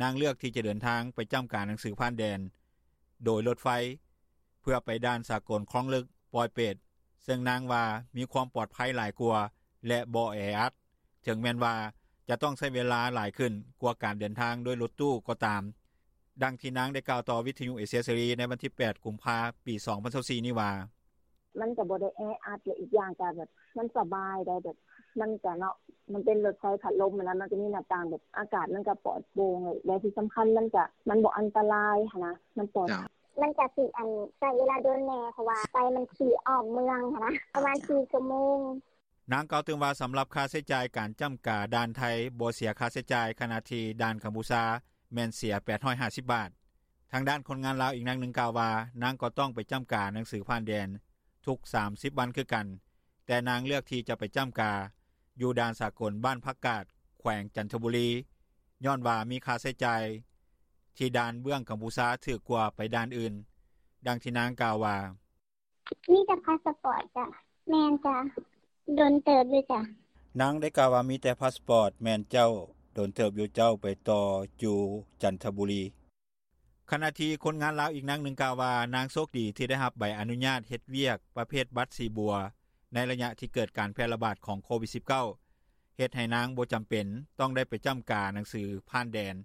ນາງເລືອກທີ່ຈະເດີນທາງໄປຈ້ຳກາໜັງສືຜ່ານແດນ ໂດຍລົດໄຟ ເພື່ອໄປດ່ານສາກົນຄອງລຶກ-ປອຍເປດ ເຊິ່ງນາງວ່າ ມີຄວາມປອດໄພຫຼາຍກວ່າ ແລະ ບໍ່ແອອັດ ເຖິງແມ່ນວ່າ ຈະຕ້ອງໃຊ້ເວລາຫຼາຍຂຶ້ນ ກວ່າການເດີນທາງດ້ວຍລົດຕູ້ກໍຕາມ. ດັ່ງທີ່ນາງໄດ້ກ່າວຕໍ່ວິທຍຸເອເຊຍເສລີ ໃນວັນທີ ແປດ ກຸມພາ ປີ 2024 ນີ້ວ່າ: ມັນກໍບໍ່ໄດ້ແອອັດ ແລະ ອີກຢ່າງກໍແບບ ມັນສະບາຍໄດ໋ ແບບ ມັນກໍເນາະ ມັນເປັນລົດໄຟພັດລົມຫັ້ນນະ ມັນກໍມີໜ້າຕ່າງ ແບບ ອາກາດມັນກໍປອດໂປ່ງ ແລະ ທີ່ສຳຄັນ ມັນກໍ ມັນບໍ່ອັນຕະລາຍຫັ້ນນະ ມັນປອດໄພ. ມັນກໍຊິ ອັນ ໃຊ້ເວລາດົນແດ່ ເພາະວ່າໄຟມັນຂີ່ອ້ອມເມືອງຫັ້ນນະ ປະມານ ສີ່ຊົ່ວໂມງ. ນາງກ່າວຕື່ມວ່າ ສຳລັບຄ່າໃຊ້ຈ່າຍການຈ້ຳກາດ່ານໄທ ບໍ່ເສຍຄ່າໃຊ້ຈ່າຍ ຂະນະທີ່ດ່ານກັມພູຊາ ແມ່ນເສຍ ແປດຮ້ອຍຫ້າສິບບາດ. ທາງດ້ານຄົນງານລາວອີກນາງໜຶ່ງກ່າວວ່າ ນາງກໍຕ້ອງໄປຈ້ຳກາໜັງສືຜ່ານແດນທຸກ ສາມສິບວັນຄືກັນ, ແຕ່ນາງເລືອກທີ່ຈະໄປຈ້ຳກາຢູ່ດ່ານສາກົນບ້ານຜັກກາດ ແຂວງຈັນທະບູລີ ຍ້ອນວ່າມີຄ່າໃຊ້ຈ່າຍທີ່ດ່ານເບື້ອງກັມພູຊາຖືກກວ່າໄປດ່ານອື່ນ. ດັ່ງທີ່ນາງກ່າວວ່າ: ມີແຕ່ພາສປອດຈ້າ. ແມ່ນຈ້າ ດົນເຕີບຢູ່ຈ້າ. ນາງໄດ້ກ່າວວ່າ ມີແຕ່ພາສປອດ. ແມ່ນເຈົ້າ ດົນເຕີບຢູ່ເຈົ້າ ໄປຕໍ່ຢູ່ຈັນທະບູລີ. ຂະນະທີ່ຄົນງານລາວອີກນາງໜຶ່ງກ່າວວ່າ ນາງໂຊກດີທີ່ໄດ້ຮັບໃບອະນຸຍາດເຮັດວຽກປະເພດບັດສີບົວ ໃນໄລຍະທີ່ເກີດການແຜ່ລະບາດຂອງໂຄວິດ-19 ເຮັດໃຫ້ນາງບໍ່ຈຳເປັນຕ້ອງໄດ້ໄປຈ້ຳກາໜັງສືຜ່ານແດນ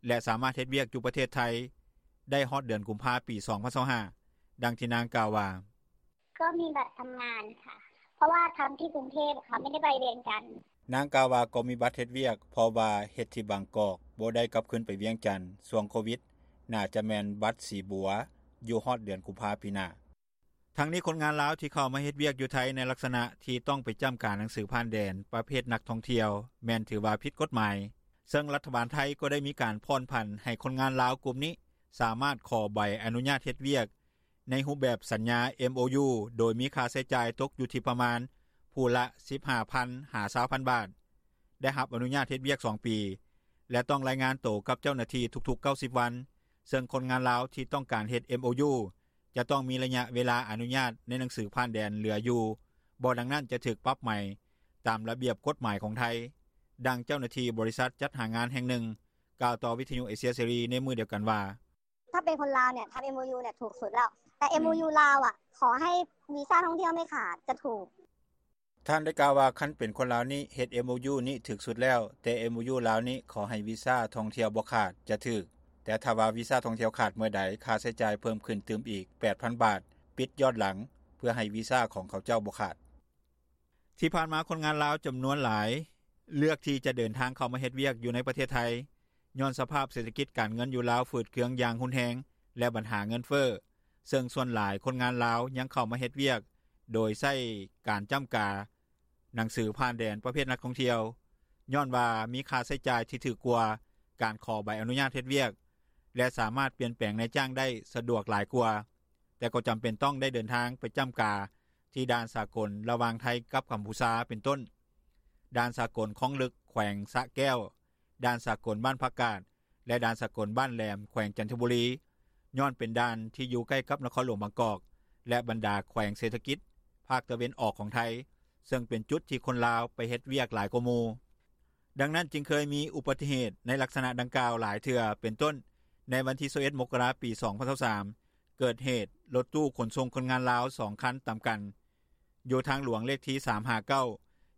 ແລະ ສາມາດເຮັດວຽກຢູ່ປະເທດໄທໄດ້ຮອດເດືອນກຸມພາ ປີ 2025. ດັ່ງທີ່ນາງກ່າວວ່າ: ກໍມີບັດທຳງານຄ່ະ ເພາະວ່າທຳທີ່ກຸງເທບ ເຂົາໄມ່ໄດ້ໄປວຽງຈັນ. ນາງກ່າວວ່າ ກໍມີບັດເຮັດວຽກ ເພາະວ່າເຮັດທີ່ບາງກອກ ບໍ່ໄດ້ກັບຄືນໄປວຽງຈັນ. ຊ່ວງໂຄວິດ ໜ້າຈະແມ່ນບັດສີບົວ ຢູ່ຮອດເດືອນກຸມພາ ປີໜ້າ. ທັງນີ້ຄົນງານລາວທີ່ເຂົ້າມາເຮັດວຽກຢູ່ໄທ ໃນລັກສະນະທີ່ຕ້ອງໄປຈ້ຳກາໜັງສືຜ່ານແດນປະເພດນັກທ່ອງທ່ຽວ ແມ່ນຖືວ່າຜິດກົດໝາຍ, ເຊິ່ງລັດຖະບານໄທກໍໄດ້ມີການຜ່ອນຜັນໃຫ້ຄົນງານລາວກຸ່ມນີ້ ສາມາດຂໍໃບອະນຸຍາດເຮັດວຽກ ໃນຮູບແບບສັນຍາ MOU ໂດຍມີຄ່າໃຊ້ຈ່າຍຕົກຢູ່ທີ່ປະມານຜູ້ລະ ສິບຫ້າພັນ ຫາ ຊາວພັນບາດ, ໄດ້ຮັບອະນຸຍາດເຮັດວຽກສອງປີ ແລະ ຕ້ອງລາຍງານໂຕກັບເຈົ້າໜ້າທີ່ທຸກໆ 90 ວັນ, ເຊິ່ງຄົນງານລາວທີ່ຕ້ອງການເຮັດ MOU ຈະຕ້ອງມີໄລຍະເວລາອະນຸຍາດໃນໜັງສືຜ່ານແດນເຫຼືອຢູ່ບໍ່, ດັ່ງນັ້ນຈະຖືກປັບໃໝຕາມລະບຽບກົດໝາຍຂອງໄທ. ດັ່ງເຈົ້າໜ້າທີ່ບໍລິສັດຈັດຫາງານແຫ່ງໜຶ່ງ ກ່າວຕໍ່ວິທຍຸເອເຊຍເສລີໃນມື້ດຽວກັນວ່າ: ຖ້າเป็นคนลาวเนี่ยทำ MOU เนี่ยถูกสุดแล้ว แต่ MOU ลาวอ่ะ ขอให้วีซ่าท่องเที่ยวไม่ขาดจะถูก. ທ່ານໄດ້ກ່າວວ່າ ຄັນເປັນຄົນລາວນີ້ເຮັດ MOU ນີ້ຖືກສຸດແລ້ວ, ແຕ່ MOU ລາວນີ້ຂໍໃຫ້ວີຊາທ່ອງທ່ຽວບໍ່ຂາດ ຈະຖືກ, ແຕ່ຖ້າວ່າວີຊາທ່ອງທ່ຽວຂາດເມື່ອໃດ ຄ່າໃຊ້ຈ່າຍເພີ່ມຂຶ້ນຕື່ມອີກ ແປດພັນບາດ ປິດຍ້ອນຫຼັງ ເພື່ອໃຫ້ວີຊາຂອງເຂົາເຈົ້າບໍ່ຂາດ. ທີ່ຜ່ານມາຄົນງານລາວຈຳນວນຫຼາຍເລືອກທີ່ຈະເດີນທາງເຂົ້າມາເຮັດວຽກຢູ່ໃນປະເທດໄທ ຍ້ອນສະພາບເສດຖະກິດການເງິນຢູ່ລາວຝືດເຄືອງຢ່າງຮຸນແຮງ ແລະ ບັນຫາເງິນເຟີ້, ເຊິ່ງສ່ວນຫຼາຍຄົນງານລາວຍັງເຂົ້າມາເຮັດວຽກໂດຍໃຊ້ການຈ້ຳກາໜັງສືຜ່ານແດນປະເພດນັກທ່ອງທ່ຽວ ຍ້ອນວ່າມີຄ່າໃຊ້ຈ່າຍທີ່ຖືກກວ່າການຂໍໃບອະນຸຍາດເຮັດວຽກ ແລະ ສາມາດປ່ຽນແປງນາຍຈ້າງໄດ້ສະດວກຫຼາຍກວ່າ, ແຕ່ກໍຈຳເປັນຕ້ອງໄດ້ເດີນທາງໄປຈ້ຳກາທີ່ດ່ານສາກົນລະຫວ່າງໄທກັບກັມພູຊາ ເປັນຕົ້ນ ດ່ານສາກົນຄອງລຶກ ແຂວງສະແກ້ວ, ດ່ານສາກົນບ້ານຜັກກາດ ແລະ ດ່ານສາກົນບ້ານແຫຼມ ແຂວງຈັນທະບູລີ ຍ້ອນເປັນດ່ານທີ່ຢູ່ໃກ້ກັບນະຄອນຫຼວງບາງກອກ ແລະ ບັນດາແຂວງເສດຖະກິດພາກຕາເວັນອອກຂອງໄທ, ເຊິ່ງເປັນຈຸດທີ່ຄົນລາວໄປເຮັດວຽກຫຼາຍກວ່າໝູ່. ດັ່ງນັ້ນຈຶ່ງເຄີຍມີອຸບັດຕິເຫດໃນລັກສະນະດັ່ງກ່າວຫຼາຍເທື່ອ, ເປັນຕົ້ນ ໃນວັນທີ ຊາວເອັດ ມົກກະລາ ປີ ສອງພັນຊາວສາມ ເກີດເຫດລົດຕູ້ຂົນສົ່ງຄົນງານລາວສອງຄັນຕຳກັນ ຢູ່ທາງຫຼວງເລກທີ ສາມຫ້າເກົ້າ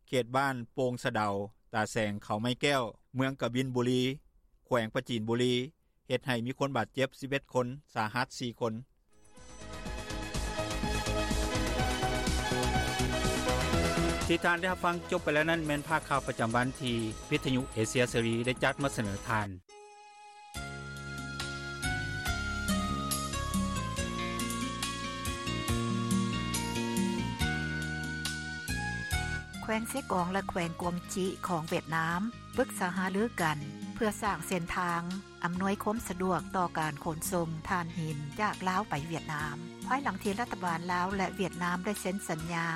ເຂດບ້ານໂປ່ງສະເດົາ, ຕາແສງ, ເຂົາໄມ້ແກ້ວ, ເມືອງກະບິນບູລີ, ແຂວງປາຈີນບູລີ, ເຮັດໃຫ້ມີຄົນບາດເຈັບ ສິບເອັດຄົນ, ສາຫັດ ສີ່ຄົນ. ທີ່ທ່ານໄດ້ຮັບຟັງຈົບໄປແລ້ວນັ້ນ ແມ່ນພາກຂ່າວປະຈຳວັນທີ່ວິທະຍຸເອເຊຍເສລີໄດ້ຈັດມາສະເໜີທ່ານ. ແຂວງເຊກອງ ແລະ ແຂວງກວາງຈິຂອງຫວຽດນາມ ປຶກສາຫາລືກັນ ເພື່ອສ້າງເສັ້ນທາງອຳນວຍຄວາມສະດວກຕໍ່ການຂົນສົ່ງຖ່ານຫີນຈາກລາວໄປຫວຽດນາມ ພາຍຫຼັງທີ່ລັດຖະບານລາວ ແລະ ຫວຽດນາມໄດ້ເຊັນສັນຍາ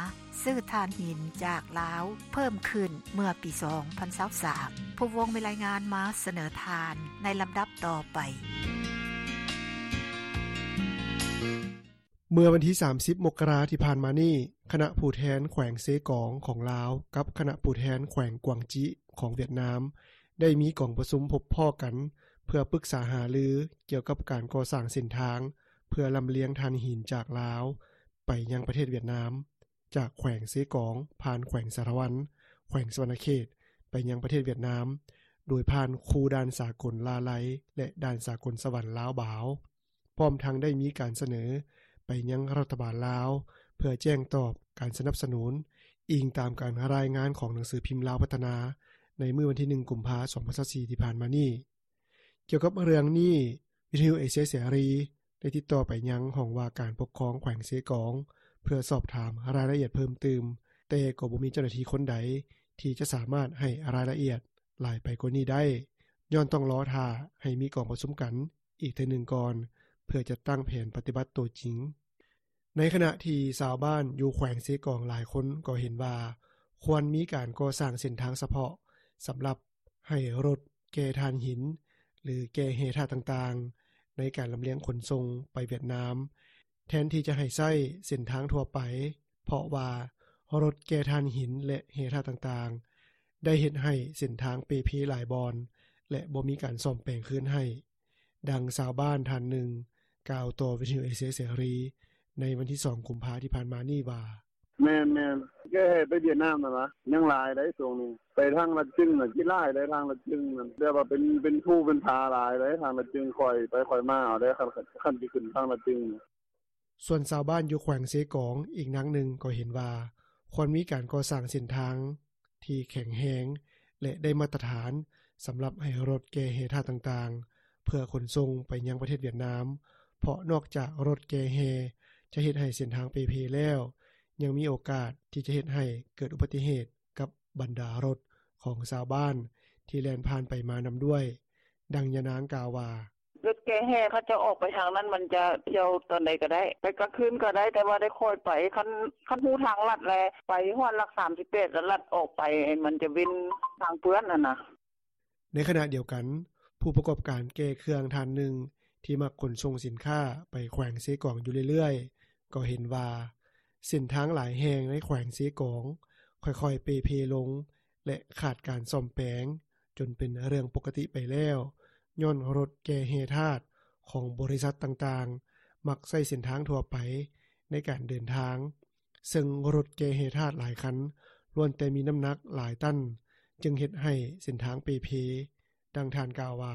ຊື້ຖ່ານຫີນຈາກລາວເພີ່ມຂຶ້ນເມື່ອປີສອງພັນຊາວສາມ. ຜູ້ວົງມີລາຍງານມາສະເໜີທ່ານໃນລຳດັບຕໍ່ໄປ. ເມື່ອວັນທີສາມສິບ ມົກກະລາທີ່ຜ່ານມານີ້, ຄະນະຜູ້ແທນແຂວງເຊກອງຂອງລາວ ກັບຄະນະຜູ້ແທນແຂວງກວາງຈິຂອງຫວຽດນາມ ໄດ້ມີກອງປະຊຸມພົບພໍ້ກັນ ເພື່ອປຶກສາຫາລືກ່ຽວກັບການກໍ່ສ້າງເສັ້ນທາງ ເພື່ອລຳລຽງຖ່ານຫີນຈາກລາວໄປຍັງປະເທດຫວຽດນາມ, ຈາກແຂວງເຊກອງ ຜ່ານແຂວງສາລະວັນ, ແຂວງສະຫວັນນະເຂດ ໄປຍັງປະເທດຫວຽດນາມ ໂດຍຜ່ານຄູ່ດ່ານສາກົນລາໄລ ແລະ ດ່ານສາກົນສະຫວັນລາວບາວ. ພ້ອມທັງໄດ້ມີການສະເໜີໄປຍັງລັດຖະບານລາວ ເພື່ອແຈ້ງຕອບການສະໜັບສະໜູນ, ອີງຕາມການລາຍງານຂອງໜັງສືພິມລາວພັດທະນາ ໃນມື້ວັນທີໜຶ່ງ ກຸມພາ ສອງພັນຊາວສີ່ ທີ່ຜ່ານມານີ້. ກ່ຽວກັບເລື່ອງນີ້, ວິທະຍຸເອເຊຍເສລີ ໄດ້ຕິດຕໍ່ໄປຍັງຫ້ອງວ່າການປົກຄອງແຂວງເຊກອງ ເພື່ອສອບຖາມລາຍລະອຽດເພີ່ມຕື່ມ, ແຕ່ກໍບໍ່ມີເຈົ້າໜ້າທີ່ຄົນໃດທີ່ຈະສາມາດໃຫ້ລາຍລະອຽດຫຼາຍໄປກວ່ານີ້ໄດ້, ຍ້ອນຕ້ອງລໍຖ້າໃຫ້ມີກອງປະຊຸມກັນ ອີກເທື່ອໜຶ່ງກ່ອນ ເພື່ອຈັດຕັ້ງແຜນປະຕິບັດໂຕຈິງ. ໃນຂະນະທີ່ຊາວບ້ານຢູ່ແຂວງເຊກອງຫຼາຍຄົນກໍເຫັນວ່າ ຄວນມີການກໍ່ສ້າງເສັ້ນທາງສະເພາະ ສຳລັບໃຫ້ລົດແກ່ຖ່ານຫີນ ຫຼື ແກ່ແຮ່ທາດຕ່າງໆ ໃນການລຳລຽງຂົນສົ່ງໄປຫວຽດນາມ ແທນທີ່ຈະໃຫ້ໃຊ້ເສັ້ນທາງທົ່ວໄປ, ເພາະວ່າລົດແກ່ຖ່ານຫີນ ແລະ ແຮ່ທາດຕ່າງໆ ໄດ້ເຮັດໃຫ້ເສັ້ນທາງເປ່ເພຫຼາຍບ່ອນ ແລະ ບໍ່ມີການສ້ອມແປງຄືນໃຫ້. ດັ່ງຊາວບ້ານທ່ານໜຶ່ງກ່າວຕໍ່ວິທະຍຸເອເຊຍເສລີ ໃນວັນທີສອງ ກຸມພາ ທີ່ຜ່ານມານີ້ວ່າ: ແມ່ນໆ ແກ່ແຮ່ໄປຫວຽດນາມຫັ້ນນະ ຍັງຫຼາຍໃດ໋ຊ່ວງນີ້. ໄປທາງລະຈຶງນະ ຫຼາຍໃດ໋ ທາງລະຈຶງນະ ແບບວ່າເປັນ ເປັນພູເປັນຜາຫຼາຍໃດ໋ ທາງລະຈຶງ. ຂ້ອຍໄປຂ້ອຍມາເອົາໄດ໋ ຄັນ ຄັນຊິຂຶ້ນທາງລະຈຶງ. ສ່ວນຊາວບ້ານຢູ່ແຂວງເຊກອງອີກນາງໜຶ່ງກໍເຫັນວ່າ ຄວນມີການກໍ່ສ້າງເສັ້ນທາງທີ່ແຂງແຮງ ແລະ ໄດ້ມາດຕະຖານ ສຳລັບໃຫ້ລົດແກ່ແຮ່ທາດຕ່າງໆ ເພື່ອຂົນສົ່ງໄປຍັງປະເທດຫວຽດນາມ, ເພາະນອກຈາກລົດແກ່ແຮ່ຈະເຮັດໃຫ້ເສັ້ນທາງເປ່ເພແລ້ວ, ຍັງມີໂອກາດທີ່ຈະເຮັດໃຫ້ເກີດອຸບັດຕິເຫດກັບບັນດາລົດຂອງຊາວບ້ານທີ່ແລ່ນຜ່ານໄປມານຳດ້ວຍ. ດັ່ງຍານາງກ່າວວ່າ: ລົດແກ່ແຮ່ເຂົາເຈົ້າອອກໄປທາງນັ້ນ ມັນຈະທ່ຽວຕອນໃດກໍໄດ້ ໄປກາງຄືນກໍໄດ້ ແຕ່ວ່າໄດ້ຄ່ອຍໄປ. ຄັນ ຄັນຮູ້ທາງລັດແລ້ວ ໄປຮອດຫຼັກສາມສິບແປດ ແລ້ວລັດອອກໄປ ມັນຈະເວັ້ນທາງເປື້ອນຫັ້ນນະ. ໃນຂະນະດຽວກັນ, ຜູ້ປະກອບການແກ່ເຄື່ອງທ່ານໜຶ່ງ ທີ່ມັກຂົນສົ່ງສິນຄ້າໄປແຂວງເຊກອງຢູ່ເລື້ອຍໆ ກໍເຫັນວ່າ ເສັ້ນທາງຫຼາຍແຫ່ງໃນແຂວງເຊກອງ ຄ່ອຍໆເປ່ເພລົງ ແລະ ຂາດການສ້ອມແປງ ຈົນເປັນເລື່ອງປົກກະຕິໄປແລ້ວ, ຍ້ອນລົດແກ່ແຮ່ທາດຂອງບໍລິສັດຕ່າງໆ ມັກໃຊ້ເສັ້ນທາງທົ່ວໄປໃນການເດີນທາງ, ເຊິ່ງລົດແກ່ແຮ່ທາດຫຼາຍຄັນ ລ້ວນແຕ່ມີນ້ຳໜັກຫຼາຍຕັນ, ຈຶ່ງເຮັດໃຫ້ເສັ້ນທາງເປ່ເພ. ດັ່ງທ່ານກ່າວວ່າ: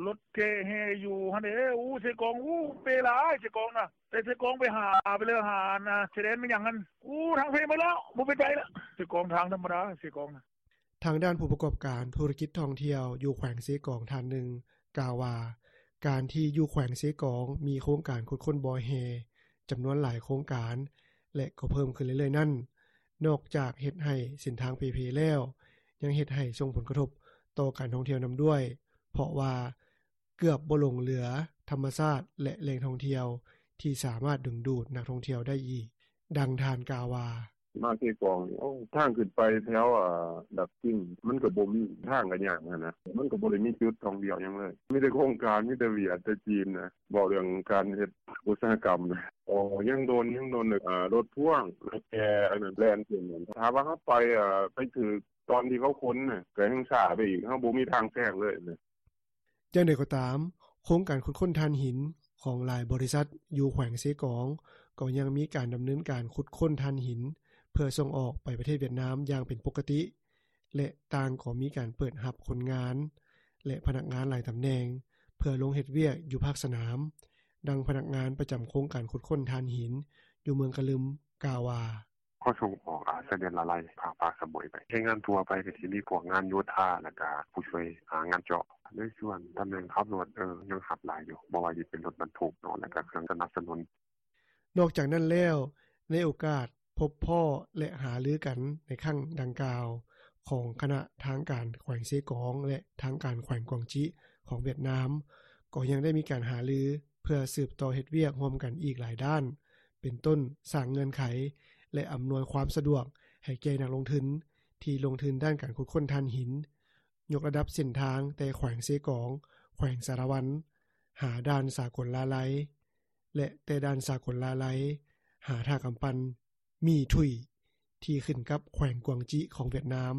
ລົດແກ່ແຮ່ຢູ່ຫັ້ນເດ້ ອູ້ ເຊກອງ ອູ້ ເປ່ຫຼາຍເຊກອງນະ ແຕ່ເຊກອງໄປຫາ ໄປເລີຫາອັນນະ ຊາຍແດນແມ່ນຫຍັງຫັ້ນ ອູ້ ທາງເພໝົດແລ້ວ ບໍ່ເປັນໄປລະ ເຊກອງ ທາງທຳມະດາເຊກອງນະ. ທາງດ້ານຜູ້ປະກອບການທຸລະກິດທ່ອງທ່ຽວຢູ່ແຂວງເຊກອງທ່ານໜຶ່ງກ່າວວ່າ ການທີ່ຢູ່ແຂວງເຊກອງມີໂຄງການຂຸດຄົ້ນບໍ່ແຮ່ຈຳນວນຫຼາຍໂຄງການ ແລະ ກໍເພີ່ມຂຶ້ນເລື້ອຍໆນັ້ນ ນອກຈາກເຮັດໃຫ້ເສັ້ນທາງເປ່ເພແລ້ວ ຍັງເຮັດໃຫ້ສົ່ງຜົນກະທົບຕໍ່ການທ່ອງທ່ຽວນຳດ້ວຍ ເພາະວ່າເກືອບບໍ່ຫຼົງເຫຼືອທຳມະຊາດ ແລະ ແຫຼ່ງທ່ອງທ່ຽວທີ່ສາມາດດຶງດູດນັກທ່ອງທ່ຽວໄດ້ອີກ. ດັ່ງທ່ານກ່າວວ່າ: ມາເຊກອງນີ້ ໂອ້ ທາງຂຶ້ນໄປແຖວ ອາ ດາກຈິງ ມັນກໍບໍ່ມີ ທາງກໍຍາກຫັ້ນນະ ມັນກໍບໍ່ໄດ້ມີຈຸດທ່ອງທ່ຽວຫຍັງເລີຍ ມີແຕ່ໂຄງການ ມີແຕ່ຫວຽດ ແຕ່ຈີນນະ ເວົ້າເລື່ອງການເຮັດອຸດສາຫະກຳນະ. ອໍ ຍັງດົນ ຍັງດົນ ອາ ລົດພ່ວງ ລົດແກ່ອັນນັ້ນແລ່ນຂຶ້ນ ຖ້າວ່າເຮົາໄປ ອາ ໄປຖືກຕອນທີ່ເຂົາຂົນນະ ກໍແຮ່ງຊ້າໄປອີກ ເຮົາບໍ່ມີທາງແຊງເລີຍນະ. ຢ່າງໃດກໍຕາມ, ໂຄງການຂຸດຄົ້ນຖ່ານຫີນຂອງຫຼາຍບໍລິສັດຢູ່ແຂວງເຊກອງ ກໍຍັງມີການດຳເນີນການຂຸດຄົ້ນຖ່ານຫີນ ເພື່ອສົ່ງອອກໄປປະເທດຫວຽດນາມຢ່າງເປັນປົກກະຕິ ແລະ ຕ່າງກໍມີການເປີດຮັບຄົນງານ ແລະ ພະນັກງານຫຼາຍຕຳແໜ່ງ ເພື່ອລົງເຮັດວຽກຢູ່ພາກສະໜາມ. ດັ່ງພະນັກງານປະຈຳໂຄງການຂຸດຄົ້ນຖ່ານຫີນຢູ່ເມືອງກະລຶມກ່າວວ່າ: ເຂົາສົ່ງອອກ ອາ ຊາຍແດນລາໄລ ພາກປາກສະໝຸຍໄປ ແຮງງານທົ່ວໄປກໍຊິມີພວກງານໂຍທາ ແລ້ວກະຜູ້ຊ່ວຍ ອາ ງານເຈາະ ໃນສ່ວນຕຳແໜ່ງຂັບລົດ ເອີ ຍັງຮັບຫຼາຍຢູ່ ບໍ່ວ່າຊິເປັນລົດບັນທຸກເນາະ ແລ້ວກະເຄື່ອງສະໜັບສະໜູນ. ນອກຈາກນັ້ນແລ້ວ ໃນໂອກາດພົບພໍ້ ແລະ ຫາລືກັນໃນຄັ້ງດັ່ງກ່າວ ຂອງຄະນະທາງການແຂວງເຊກອງ ແລະ ທາງການແຂວງກວາງຈິຂອງຫວຽດນາມ ກໍຍັງໄດ້ມີການຫາລື ເພື່ອສືບຕໍ່ເຮັດວຽກຮ່ວມກັນອີກຫຼາຍດ້ານ ເປັນຕົ້ນ ສ້າງເງື່ອນໄຂ ແລະ ອຳນວຍຄວາມສະດວກໃຫ້ແກ່ນັກລົງທຶນທີ່ລົງທຶນດ້ານການຂຸດຄົ້ນຖ່ານຫີນ, ຍົກລະດັບເສັ້ນທາງແຕ່ແຂວງເຊກອງ, ແຂວງສາລະວັນ ຫາດ່ານສາກົນລາໄລ ແລະ ແຕ່ດ່ານສາກົນລາໄລ ຫາທ່າກຳປັ່ນ ໝີ່ທຸຍ ທີ່ຂຶ້ນກັບແຂວງກວາງຈິຂອງຫວຽດນາມ.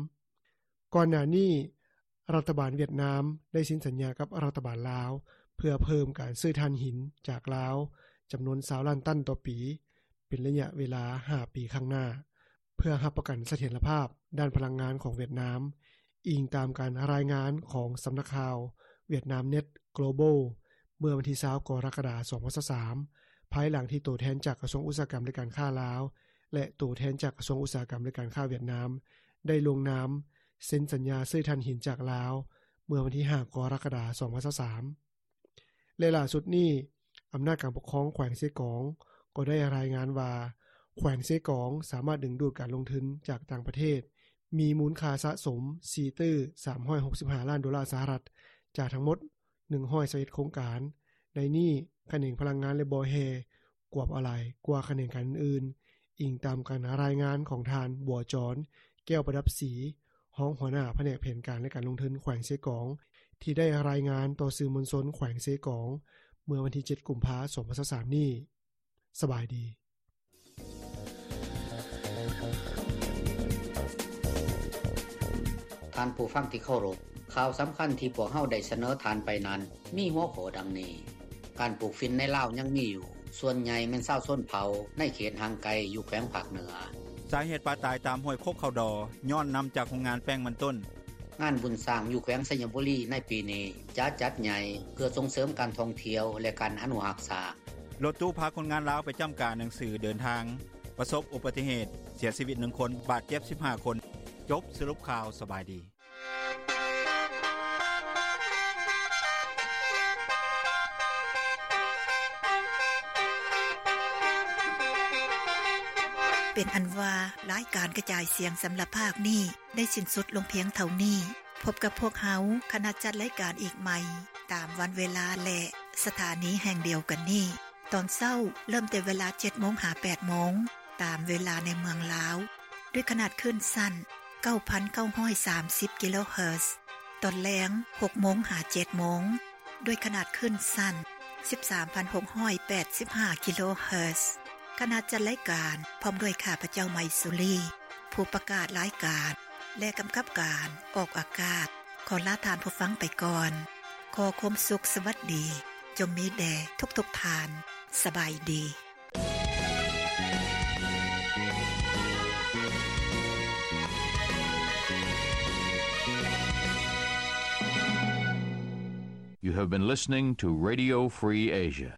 ກ່ອນໜ້ານີ້ ລັດຖະບານຫວຽດນາມໄດ້ເຊັນສັນຍາກັບລັດຖະບານລາວ ເພື່ອເພີ່ມການຊື້ຖ່ານຫີນຈາກລາວ ຈຳນວນຊາວລ້ານຕັນຕໍ່ປີ ເປັນໄລຍະເວລາຫ້າປີຂ້າງໜ້າ ເພື່ອຮັບປະກັນສະຖຽນລະພາບດ້ານພະລັງງານຂອງຫວຽດນາມ, ອີງຕາມການລາຍງານຂອງສຳນັກຂ່າວ Vietnamnet Global ເມື່ອວັນທີຊາວ ກໍລະກະດາ ສອງພັນຊາວສາມ ພາຍຫຼັງທີ່ໂຕແທນຈາກກະຊວງອຸດສາຫະກຳ ແລະ ການຄ້າລາວ ແລະ ໂຕແທນຈາກກະຊວງອຸດສາຫະກຳ ແລະ ການຄ້າຫວຽດນາມ ໄດ້ລົງນາມເຊັນສັນຍາຊື້ຖ່ານຫີນຈາກລາວ ເມື່ອວັນທີຫ້າ ກໍລະກະດາ ສອງພັນຊາວສາມ. ແລະ ຫຼ້າສຸດນີ້ ອຳນາດການປົກຄອງແຂວງເຊກອງ ກໍໄດ້ລາຍງານວ່າ ແຂວງເຊກອງສາມາດດຶງດູດການລົງທຶນຈາກຕ່າງປະເທດ ມີມູນຄ່າສະສົມ ສີ່ຕື້ສາມຮ້ອຍຫົກສິບຫ້າລ້ານໂດລາສະຫະລັດ ຈາກທັງໝົດ ໜຶ່ງຮ້ອຍຊາວເອັດໂຄງການ. ໃນນີ້ ຂະແໜງພະລັງງານ ແລະ ບໍ່ແຮ່ ກວມເອົາຫຼາຍກວ່າຂະແໜງການອື່ນໆ, ອີງຕາມການລາຍງານຂອງທ່ານ ບົວຈອນ ແກ້ວປະດັບສີ, ຮອງຫົວໜ້າພະແນກແຜນການ ແລະ ການລົງທຶນແຂວງເຊກອງ ທີ່ໄດ້ລາຍງານຕໍ່ສື່ມວນຊົນແຂວງເຊກອງ ເມື່ອວັນທີເຈັດ ກຸມພາ ສອງພັນຊາວສາມນີ້. ສະບາຍດີ. ທ່ານຜູ້ຟັງທີ່ເຄົາລົບ, ຂ່າວສຳຄັນທີ່ພວກເຮົາໄດ້ສະເໜີທ່ານໄປນັ້ນ ມີຫົວຂໍ້ດັ່ງນີ້: ການປູກຝິ່ນໃນລາວຍັງມີຢູ່, ສ່ວນໃຫຍ່ແມ່ນຊາວຊົນເຜົ່າໃນເຂດຫ່າງໄກຢູ່ແຂວງພາກເໜືອ. ສາເຫດປາຕາຍຕາມຫ້ວຍໂຄກເຂົ້າດໍ ຍ້ອນນຳຈາກໂຮງງານແປ້ງມັນຕົ້ນ. ງານບຸນຊ້າງຢູ່ແຂວງໄຊຍະບູລີໃນປີນີ້ຈະຈັດໃຫຍ່ ເພື່ອສົ່ງເສີມການທ່ອງທ່ຽວ ແລະ ການອະນຸຮັກຊ້າງ. ລົດຕູ້ພາຄົນງານລາວໄປຈ້ຳກາໜັງສືເດີນທາງ ປະສົບອຸບັດຕິເຫດ, ເສຍຊີວິດໜຶ່ງຄົນ, ບາດເຈັບສິບຫ້າຄົນ. ຈົບສະຫຼຸບຂ່າວ. ສະບາຍດີ. ເປັນອັນວ່າ ລາຍການກະຈາຍສຽງສຳລັບພາກນີ້ ໄດ້ສິ້ນສຸດລົງພຽງເທົ່ານີ້. ພົບກັບພວກເຮົາ ຄະນະຈັດລາຍການອີກໃໝ່ ຕາມວັນເວລາ ແລະ ສະຖານີແຫ່ງດຽວກັນນີ້. ຕອນເຊົ້າເລີ່ມແຕ່ເວລາເຈັດໂມງຫາແປດໂມງ ຕາມເວລາໃນເມືອງລາວ ດ້ວຍຂະໜາດຄື້ນສັ້ນ ເກົ້າພັນເກົ້າຮ້ອຍສາມສິບກິໂລເຮີດ, ຕອນແລງ ຫົກໂມງຫາເຈັດໂມງ ດ້ວຍຂະໜາດຄື້ນສັ້ນ ສິບສາມພັນຫົກຮ້ອຍແປດສິບຫ້າກິໂລເຮີດ. ຄະນະຈັດລາຍການ ພ້ອມດ້ວຍຂ້າພະເຈົ້າ ໄມຊູລີ ຜູ້ປະກາດລາຍການ ແລະ ກຳກັບການອອກອາກາດ ຂໍລາທ່ານຜູ້ຟັງໄປກ່ອນ. ຂໍຄວາມສຸກສະຫວັດດີ ຈົ່ງມີແດ່ທຸກໆທ່ານ. ສະບາຍດີ. You have been listening to Radio Free Asia.